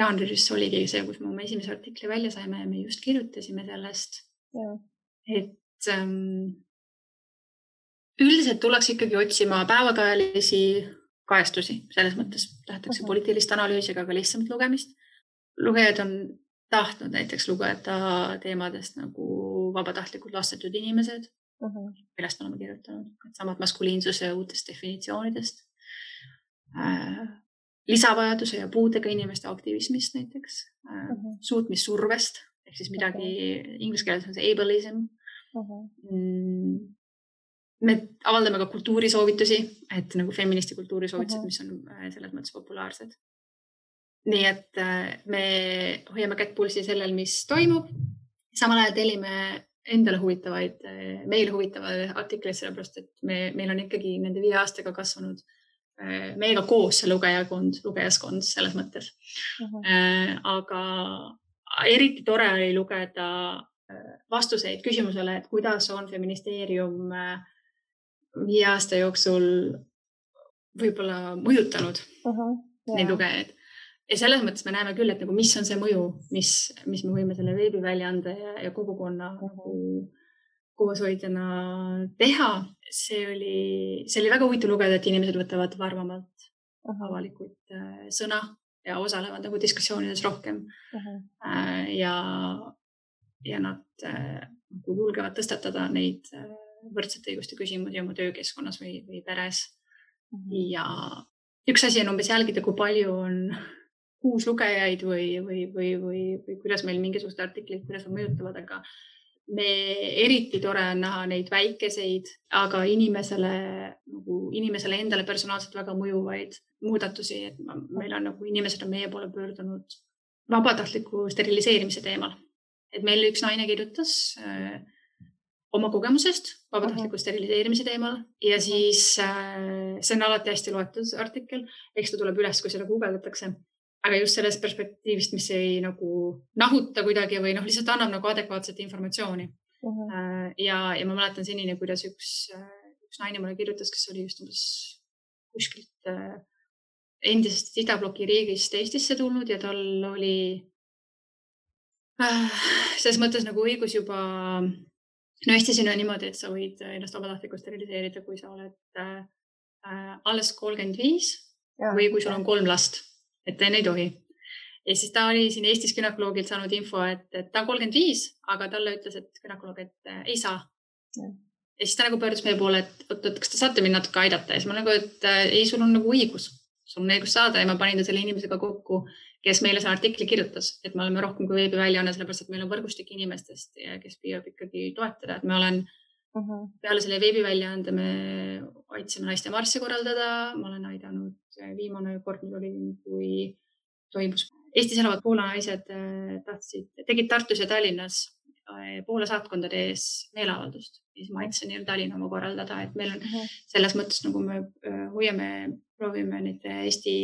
jaanuaris oligi see, kus me oma esimese artikli välja saime ja me just kirjutasime sellest. Et üldiselt tuleks ikkagi otsima päevakajalisi kajastusi, selles mõttes tahetakse poliitilist analüüsi, aga ka lihtsamat lugemist. Lugejad on tahtnud näiteks lugeda teemadest nagu vabatahtlikud lastetud inimesed, millest oleme kirjutanud, samad maskuliinsuse uutest definitsioonidest, lisavajaduse ja puudega inimeste aktivismist näiteks, suutmissurvest, ehk siis midagi inglise keeles on see ableism. Me avaldame ka kultuurisoovitusi, et nagu feministi kultuurisoovitused, mis on selles mõttes populaarsed. Nii et me hoiame kätt pulsi sellel, mis toimub. Samal ajal tellime endale meile huvitavaid artikleid, sellepärast, et meil on ikkagi nende 5 aastaga kasvanud meiega koos see lugejaskond selles mõttes. eriti tore oli lugeda vastuseid küsimusele, et kuidas on feministeerium 5 aasta jooksul võib-olla mõjutanud neid lugejaid. Ja selles mõttes me näeme küll, et nagu, mis on see mõju, mis me võime selle veebiväljaande ja kogukonna kooshoidjana teha. See oli väga huvitav lugeda, et inimesed võtavad varmamalt avalikult sõna ja osalevad nagu diskussioonides rohkem. Ja nad julgevad tõstatada neid võrdsete õiguste küsimusi oma töökeskkonnas või peres. Ja üks asi on umbes jälgida, kui palju on uuslugejaid või kuidas meil mingisugused artiklid, kuidas on mõjutavad, aga eriti tore on näha neid väikeseid, aga inimesele endale personaalselt väga mõjuvaid muudatusi, et meil on nagu inimesed on meie poole pöördunud vabatahtliku steriliseerimise teemal. Et meil üks naine kirjutas oma kogemusest vabatahtliku steriliseerimise teemal ja siis see on alati hästi loetud artikkel, eks ta tuleb üles, kui seda guugeldatakse. Aga just sellest perspektiivist, mis ei nagu nahuta kuidagi või lihtsalt annab nagu adekvaatset informatsiooni. Ja ma mäletan senini, kuidas üks naine mulle kirjutas, kes oli just kuskilt endisest idabloki riigist Eestisse tulnud ja tal oli selles mõttes nagu õigus juba, Eestis on niimoodi, et sa võid ennast vabatahtlikult steriliseerida, kui sa oled alles 35 või kui sul on 3 last. Et enne ei tohi. Ja siis ta oli siin Eestis günekoloogilt saanud info, et ta on 35, aga talle ütles, et gynekoloog, et ei saa. Ja siis ta nagu pöördus meie poole, et kas te saate mind natuke aidata? Ja siis ma nagu, et ei, sul on nagu õigus. Sul on õigus saada ja ma panin ta selle inimesega kokku, kes meile selle artikli kirjutas. Et me oleme rohkem kui veebiväljaanne, sellepärast, et meil on võrgustik inimestest, kes püüab ikkagi toetada. Et me olen peale selle veebiväljaande me aitsime naiste marssi korraldada. Ma olen aidanud viimane kord, kui toimus. Eestis elavad Poola naised tegid Tartus ja Tallinnas Poola saatkondade ees meeleavaldust. Siis ma aitasin Tallinna oma korraldada, et meil on selles mõttes, nagu me proovime neid Eesti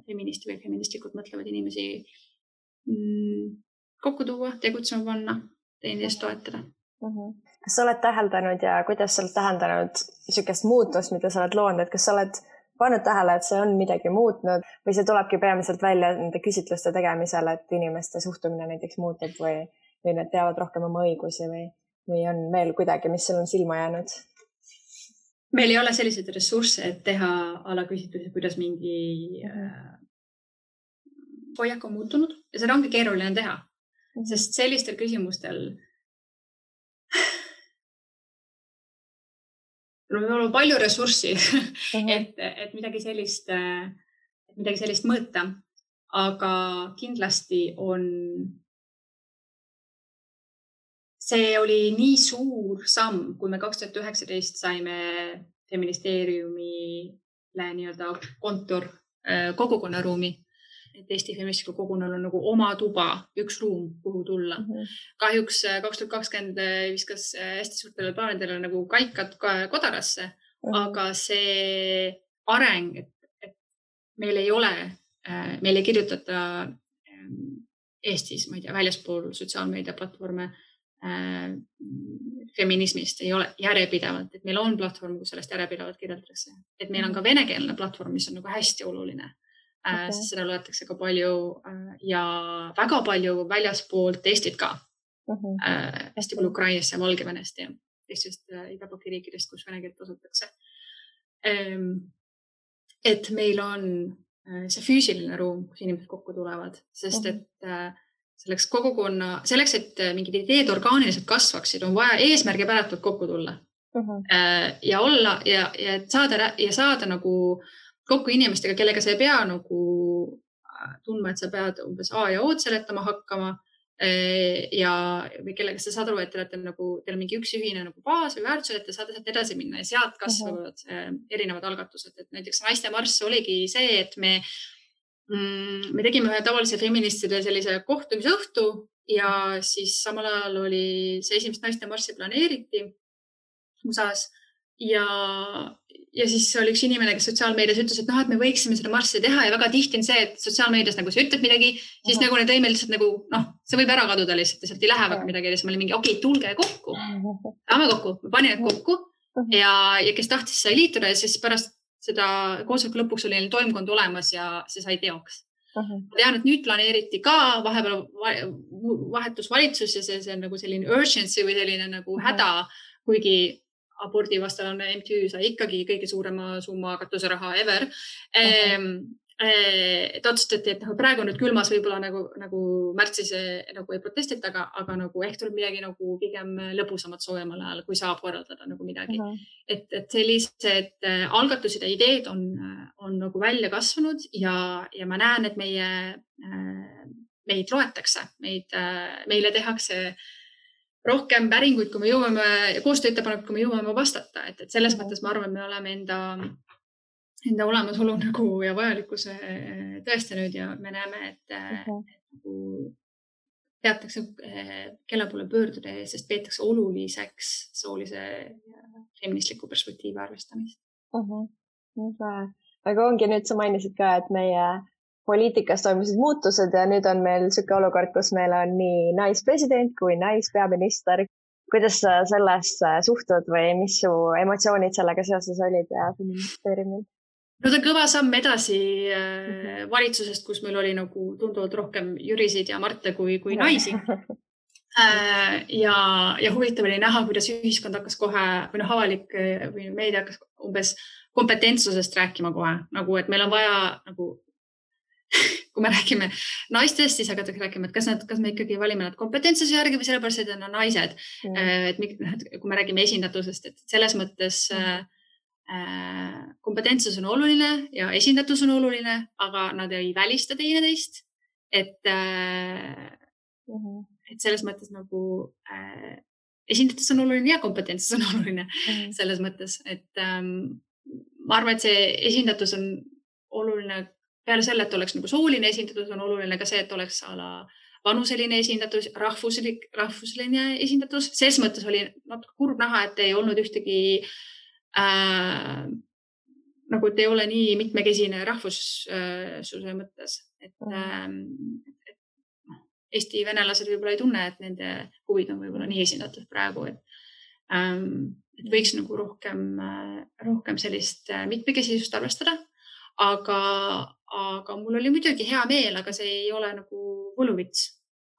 feministi või feministlikult mõtlevad inimesi kokku tuua, tegutsema panna, teineteist toetada. Kas sa oled täheldanud ja kuidas sa oled täheldanud niisugust muutust, mida sa oled loonud, et kas sa oled pannud tähele, et see on midagi muutnud või see tulebki peamiselt välja nende küsitluste tegemisel, et inimeste suhtumine näiteks muutub või nad teavad rohkem oma õigusi või on veel kuidagi, mis sul on silma jäänud? Meil ei ole selliseid ressursse, et teha alaküsitlusi, kuidas mingi hoiak on muutunud ja seda ongi keeruline teha, sest sellistel küsimustel meil on palju ressurssi, et midagi sellist mõõta, aga kindlasti see oli nii suur samm, kui me 2019 saime feministeeriumile nii-öelda kontor kogukonnaruumi, et Eesti feministliku kogukonnal on nagu oma tuba, üks ruum, kuhu tulla. Kahjuks 2020 viskas hästi suurtele plaanidele nagu kaikad kodarasse, aga see areng, et meil ei kirjutata Eestis, ma ei tea, väljaspool sotsiaalmeediaplatvorme feminismist ei ole järjepidevalt, et meil on platvorm, kus sellest järjepidevalt kirjeldatakse. Et meil on ka venekeelne platvorm, mis on nagu hästi oluline. Sest seda loetakse ka palju ja väga palju väljaspool Eestit ka. Hästi palju Ukrainast ja Valgevenest ja teistest idabloki riikidest, kus vene keelt kasutatakse. Et meil on see füüsiline ruum, kus inimesed kokku tulevad, sest et selleks, et mingid ideed orgaaniliselt kasvaksid, on vaja eesmärgi päratult kokku tulla ja olla ja saada nagu kokku inimestega, kellega sa ei pea nagu tundma, et sa pead umbes A ja O-d seletama hakkama või kellega sa saad aru, et teil on mingi üks ühine nagu baas või väärtused, et te saate sealt edasi minna ja sealt kasvavad erinevad algatused. Et näiteks naiste marss oligi see, et me tegime ühe tavalise feministide sellise kohtumise õhtu ja siis samal ajal oli see esimest naiste marssi planeeriti USA-s ja siis oli üks inimene, kes sotsiaalmeedias ütles, et noh, et me võiksime seda marssi teha ja väga tihti on see, et sotsiaalmeedias nagu sa ütled midagi, siis nagu need lõime lihtsalt nagu, noh, see võib ära kaduda lihtsalt ja sealt ei lähe väga midagi. Ja siis oli mingi, okei, tulge kokku. Saame kokku. Me panin need kokku ja kes tahtis sai liituda ja siis pärast seda koosoleku lõpuks oli neil toimkond olemas ja see sai teoks. Ma tean, et nüüd planeeriti ka vahepeal vahetus valitsus ja see on nagu selline urgency või selline nagu häda, kuigi abordivastalane MTÜ sai ikkagi kõige suurema summa katuseraha ever. Et otsustati, et praegu nüüd külmas võib-olla nagu märtsis nagu ei protestita, aga nagu ehk tuleb midagi nagu pigem lõbusamat soojemal ajal, kui saab korraldada nagu midagi. Et sellised algatused ja ideed on nagu välja kasvanud ja ma näen, et meid loetakse, meile tehakse rohkem päringuid, kui me jõuame ja koostööettepanekud, kui me jõuame vastata. Et selles mõttes ma arvan, me oleme enda olemasolu nagu ja vajalikkuse tõestanud ja me näeme, et teatakse, kelle poole pöörduda, sest peetakse oluliseks soolise feministliku perspektiivi arvestamist. Aga ongi nüüd, sa mainisid ka, et meie poliitikas toimusid muutused ja nüüd on meil selline olukord, kus meil on nii naispresident kui naispeaminister. Kuidas sa sellesse suhtud või mis su emotsioonid sellega seoses olid ja feministeeriumil? No ta kõva samm edasi valitsusest, kus meil oli nagu tunduvalt rohkem Jürisid ja Marte kui naisi. Ja huvitav oli näha, kuidas ühiskond hakkas kohe või avalik või meedia hakkas umbes kompetentsusest rääkima kohe. Nagu, et meil on vaja nagu, kui me räägime naistest, siis hakatakse rääkima, et kas me ikkagi valime nad kompetentsuse järgi või sellepärast, et on naised. Et kui me räägime esindatusest, et selles mõttes kompetentsus on oluline ja esindatus on oluline, aga nad ei välista teineteist. Et selles mõttes nagu esindatus on oluline ja kompetentsus on oluline selles mõttes, et ma arvan, et see esindatus on oluline peale selle, et oleks nagu sooline esindatus, on oluline ka see, et oleks vanuseline esindatus, rahvusline esindatus. Selles mõttes oli natuke kurb näha, et ei olnud ühtegi nagu, et ei ole nii mitmekesine rahvussuse mõttes, et Eesti venelased võib-olla ei tunne, et nende huvid on võib-olla nii esindatud praegu, et võiks nagu rohkem sellist mitmekesisust arvestada, aga mul oli muidugi hea meel, aga see ei ole nagu võluvits.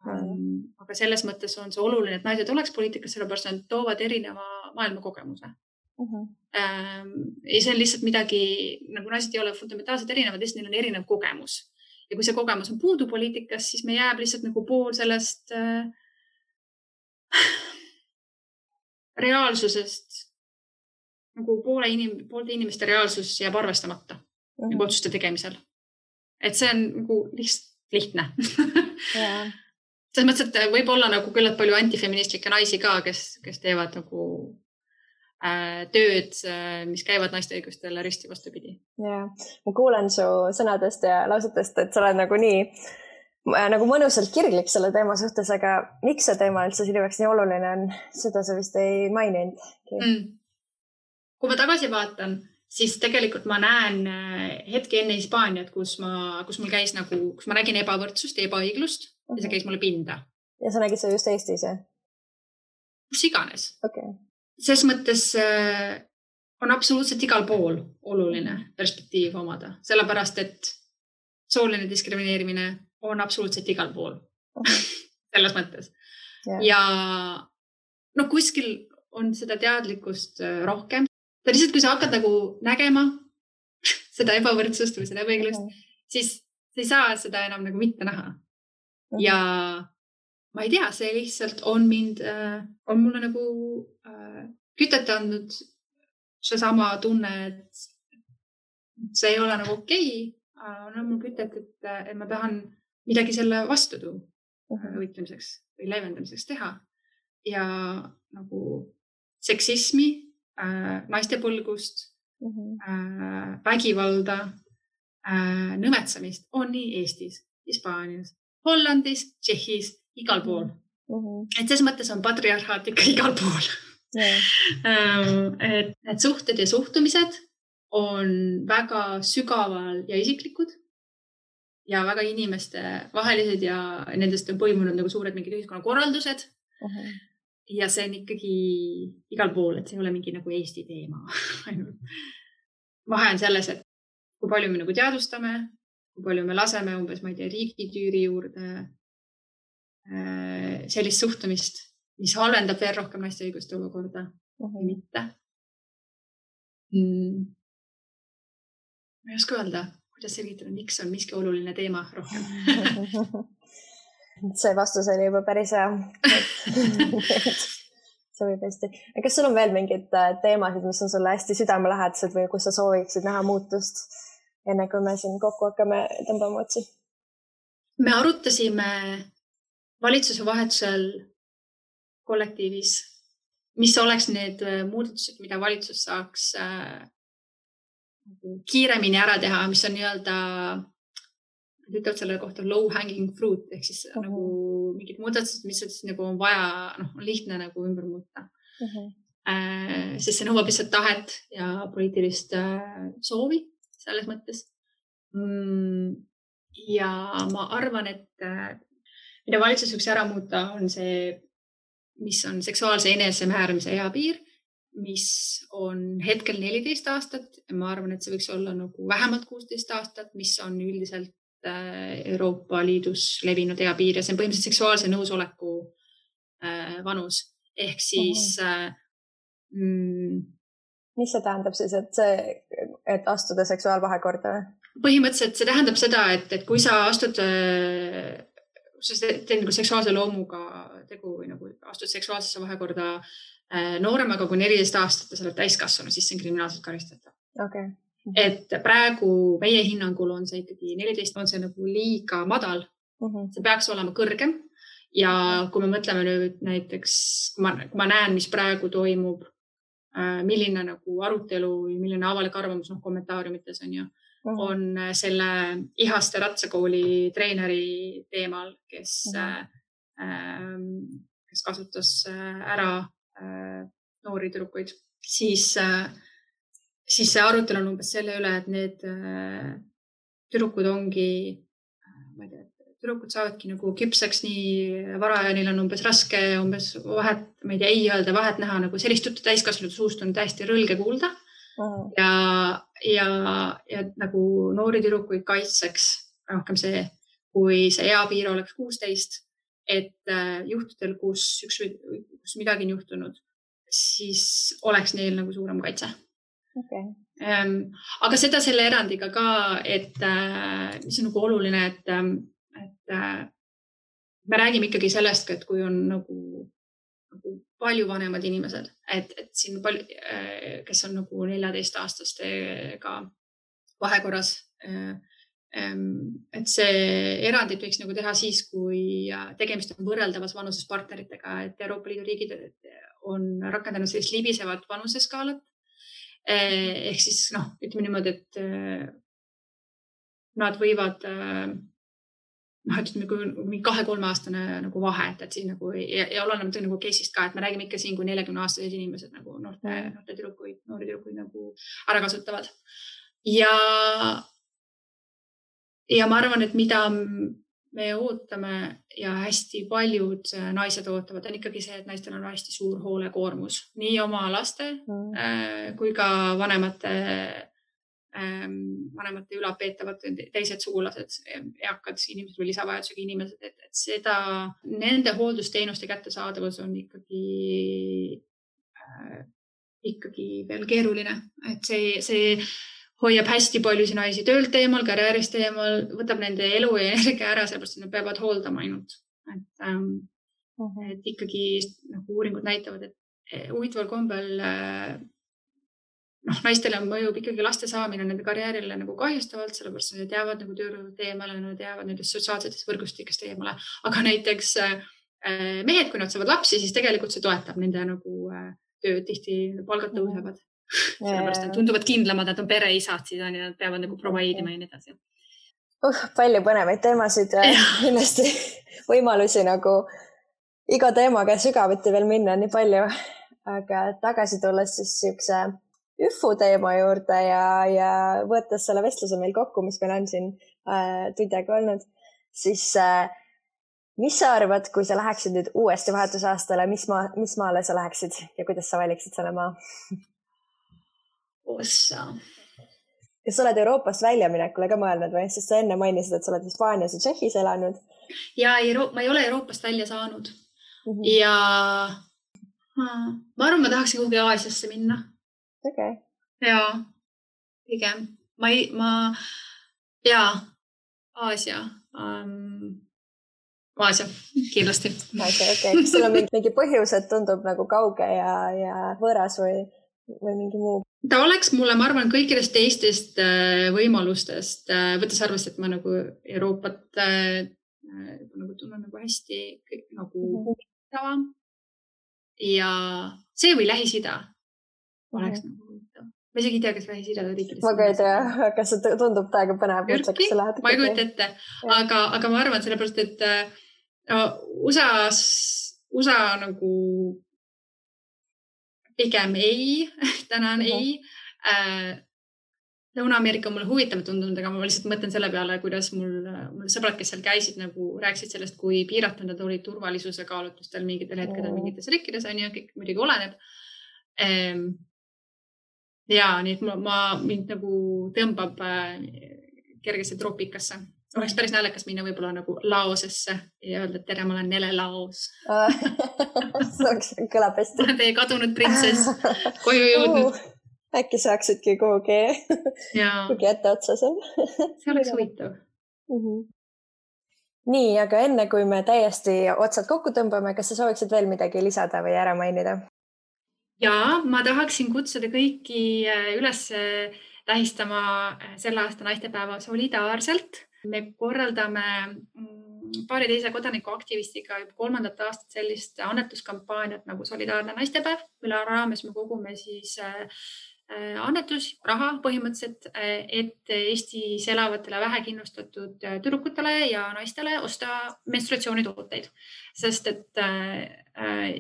Aga selles mõttes on see oluline, et naised oleks poliitikas, sellepärast nad toovad erineva maailma kogemuse. Ja see on lihtsalt midagi, nagu naised ei ole fundamentaalselt erinevad, neil on erinev kogemus. Ja kui see kogemus on puudu poliitikas, siis me jääb lihtsalt nagu pool sellest reaalsusest, nagu poolte inimeste reaalsus jääb arvestamata nagu otsuste tegemisel. Et see on nagu lihtne. Selles mõttes, et võib olla nagu küllalt palju antifeministlikke naisi ka, kes teevad nagu tööd, mis käivad naiste õigustele risti vastupidi. Ja, ma kuulen su sõnadest ja lausetest, et sa oled nagu mõnusalt kirglik selle teema suhtes, aga miks see teema üldse sinu jaoks nii oluline on? Seda sa vist ei maininud. Kui ma tagasi vaatan, siis tegelikult ma näen hetke enne Hispaaniat, kus mul käis nagu, kus ma nägin ebavõrdsust ja ebaõiglust ja see käis mulle pinda. Ja sa nägid seda just Eestis, jah? Kus iganes. Okay. Ses mõttes on absoluutselt igal pool oluline perspektiiv omada, sellepärast, et sooline diskrimineerimine on absoluutselt igal pool. Selles mõttes. Ja kuskil on seda teadlikkust rohkem. Ta lihtsalt, kui sa hakkad nagu nägema seda ebavõrdsust või seda ebaõiglust, siis sa ei saa seda enam nagu mitte näha. Ja ma ei tea, see lihtsalt on mulle nagu kütet andnud see sama tunne, et see ei ole nagu okei. On mul kütet, et ma tahan midagi selle vastu võitlemiseks või leevendamiseks teha. Ja nagu seksismi, naistepõlgust, vägivalda, nõmetsamist on nii Eestis, Hispaanias, Hollandis, Tšehhis, igal pool. Et selles mõttes on patriarhaat ikka igal pool. Et suhted ja suhtumised on väga sügaval ja isiklikud ja väga inimeste vahelised ja nendest on põimunud nagu suured mingid ühiskonnakorraldused. Ja see on ikkagi igal pool, et see ei ole mingi nagu Eesti teema. Vahe on selles, et kui palju me nagu teadvustame, kui palju me laseme umbes, ma ei tea, riigitüüri juurde sellist suhtumist, mis halvendab veel rohkem naiste õiguste olukorda või mitte. Ma ei oska öelda, kuidas selgitada, miks on miski oluline teema rohkem. See vastus oli juba päris hea. Sobib hästi. Kas sul on veel mingid teemasid, mis on sulle hästi südamelähedased või kus sa sooviksid näha muutust, enne kui me siin kokku hakkame tõmbama otsi? Me arutasime valitsuse vahetusel kollektiivis, mis oleks need muudatused, mida valitsus saaks kiiremini ära teha, mis on nii-öelda ütlevad selle kohta low hanging fruit, ehk siis nagu mingid muudatused, mis nagu on vaja, on lihtne nagu ümber muuta. Sest see nõuab lihtsalt tahet ja poliitilist soovi selles mõttes. Ja ma arvan, et mida valitsus võiks ära muuta, on see, mis on seksuaalse enesemääramise eapiir, mis on hetkel 14 aastat. Ma arvan, et see võiks olla nagu vähemalt 16 aastat, mis on üldiselt Euroopa Liidus levinud eapiir ja see on põhimõtteliselt seksuaalse nõusoleku vanus. Ehk siis... Mis see tähendab siis, et astuda seksuaalvahekorda? Põhimõtteliselt see tähendab seda, et kui sa astud, sa teed nagu seksuaalse loomuga tegu või nagu astud seksuaalsesse vahekorda nooremaga kui 14 aastat ja sa oled täiskasvanu, siis see on kriminaalselt karistatav. Okay. Et praegu meie hinnangul on see ikkagi 14, on see nagu liiga madal. See peaks olema kõrgem. Ja kui me mõtleme nüüd näiteks, kui ma näen, mis praegu toimub, milline nagu arutelu või milline avalik arvamus kommentaariumites on selle Ihaste ratsakooli treeneri teemal, kes kasutas ära noori tüdrukuid, siis see arutelu on umbes selle üle, et need tüdrukud ongi, ma ei tea, tüdrukud saavadki nagu küpseks nii vara ja neil on umbes raske umbes vahet, ma ei tea, ei öelda vahet näha, nagu sellist juttu täiskasvanud suust on täiesti rõlge kuulda. Ja nagu noori tüdrukuid kaitseks rohkem see, kui see eapiir oleks 16, et juhtudel, kus midagi on juhtunud, siis oleks neil nagu suurem kaitse. Okay. Aga seda selle erandiga ka, et mis on nagu oluline, et me räägime ikkagi sellest, et kui on nagu palju vanemad inimesed, et siin palju, kes on nagu 14-aastastega vahekorras, et see erandit võiks nagu teha siis, kui tegemist on võrreldavas vanuses partneritega, et Euroopa Liidu riigid on rakendanud sellist libisevat vanuseskaalat. Ehk siis, ütleme niimoodi, et nad võivad, ütleme, kui 2-3 aastane nagu vahe, et siin nagu ja oleneb nagu case'ist ka, et me räägime ikka siin, kui 40-aastased inimesed nagu noori tüdrukuid nagu ära kasutavad. Ja ma arvan, et mida me ootame ja hästi paljud naised ootavad, on ikkagi see, et naistel on hästi suur hoolekoormus. Nii oma laste kui ka vanemate ülalpeetavad teised sugulased, eakad inimesed või lisavajadusega inimesed, et seda, nende hooldusteenuste kättesaadavus on ikkagi veel keeruline. Et see hoiab hästi paljusid naisi töölt eemal, karjäärist eemal, võtab nende elu ja energia ära, sellepärast et nad peavad hooldama ainult. Et ikkagi nagu uuringud näitavad, et huvitaval kombel naistele mõjub ikkagi laste saamine nende karjäärile nagu kahjustavalt, sellepärast nad teavad nagu töörõud eemale, nad teavad nendest sotsiaalsetest võrgustikest eemale. Aga näiteks mehed, kui nad saavad lapsi, siis tegelikult see toetab nende nagu tööd, tihti palgad tõusevad. Sellepärast nad tunduvad kindlamad, nad on pereisad, siis nad peavad nagu provaidima ja nii edasi. Palju põnevaid teemasid ja kindlasti võimalusi nagu iga teemaga sügavuti veel minna nii palju. Aga tagasi tulles siis üfu teema juurde ja võttes selle vestluse meil kokku, mis meil on siin tund aega olnud, siis mis sa arvad, kui sa läheksid nüüd uuesti vahetusaastale, mis maale sa läheksid ja kuidas sa valiksid selle maa? Ossa. Kas sa oled Euroopast väljaminekule ka mõelnud või? Sest sa enne mainisid, et sa oled Hispaanias ja Tšehhis elanud. Ja ma ei ole Euroopast välja saanud. Ja ma arvan, ma tahaksin kuhugi Aasiasse minna. Okay. Ja, pigem. Aasia. Aasia, kindlasti. Aasia, okei. Kas sul on mingi põhjus, et tundub nagu kauge ja võõras või mingi muu? Ta oleks mulle, ma arvan, kõikidest teistest võimalustest, võttes arvest, et ma nagu Euroopat nagu tunnen nagu hästi nagu huvitavam. Ja see või Lähis-Ida oleks nagu huvitav. Ma isegi ei tea, kas Lähis-Ida riikidest. Ma ka ei tea, kas see tundub täiega põnev. Ma ei kujuta ette, aga ma arvan sellepärast, et USA nagu pigem ei, tänan ei. Lõuna-Ameerika on mulle huvitav tundunud, aga ma lihtsalt mõtlen selle peale, kuidas mul sõbrad, kes seal käisid, nagu rääkisid sellest, kui piiratud nad olid turvalisuse kaalutlustel mingitel hetkedel mingites riikides, on ju, kõik muidugi oleneb. Ja nii, et mind nagu tõmbab kergesse troopikasse. Oleks päris naljakas minna võib-olla nagu Laosesse ja öelda, et tere, ma olen Nele Laos. See kõlab hästi. Ma olen teie kadunud printsess, koju jõudnud. Äkki saaksidki kuhugi ette otsa seal. See oleks huvitav. Nii, aga enne kui me täiesti otsad kokku tõmbame, kas sa sooviksid veel midagi lisada või ära mainida? Ja ma tahaksin kutsuda kõiki üles tähistama selle aasta naistepäeva solidaarselt. Me korraldame paari teise kodanikuaktivistiga juba 3. aastat sellist annetuskampaaniat nagu Solidaarne naistepäev, mille raames me kogume siis annetus, raha põhimõtteliselt, et Eestis elavatele vähekindlustatud tüdrukutele ja naistele osta menstruatsioonitooteid. Sest et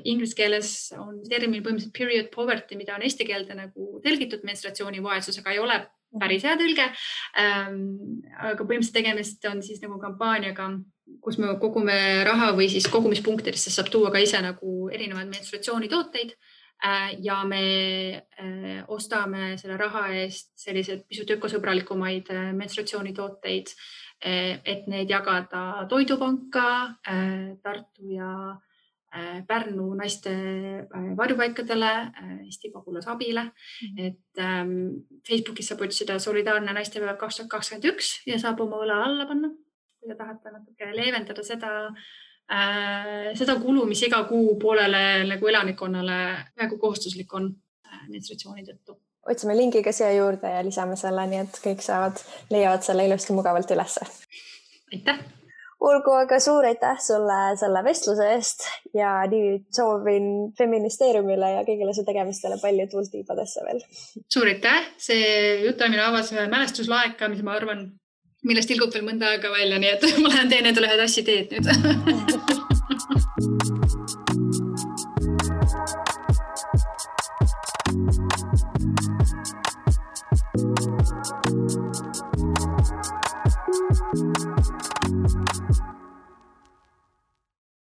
inglise keeles on termin põhimõtteliselt period poverty, mida on eesti keelde nagu tõlgitud menstruatsioonivaesusega, ei ole päris hea tõlge. Aga põhimõtteliselt tegemist on siis nagu kampaaniaga, kus me kogume raha või siis kogumispunktidesse saab tuua ka ise nagu erinevaid menstruatsioonitooteid. Ja me ostame selle raha eest sellised pisut ökosõbralikumaid menstruatsioonitooteid, et neid jagada Toidupanka, Tartu ja Pärnu naiste varjupaikadele, Eesti pagulasabile. Et Facebookis saab otsida Solidaarne naistepäev 2021 ja saab oma õla alla panna, kui te tahate natuke leevendada seda kulu, mis iga kuu poolele nagu elanikkonnale väga kohustuslik on menstruatsiooni tõttu. Otsime lingi ka siia juurde ja lisame selle, nii et kõik leiavad selle ilusti mugavalt ülesse. Aitäh! Olgu, aga suur aitäh sulle selle vestluse eest ja nii soovin Feministeeriumile ja kõigile su tegemistele palju tuult tiibadesse veel. Suur aitäh! See jutamine avas ühe mälestuslaeka, mis ma arvan, millest tilgub veel mõnda aega välja, nii et ma lähen teen endale ühed assi teed nüüd.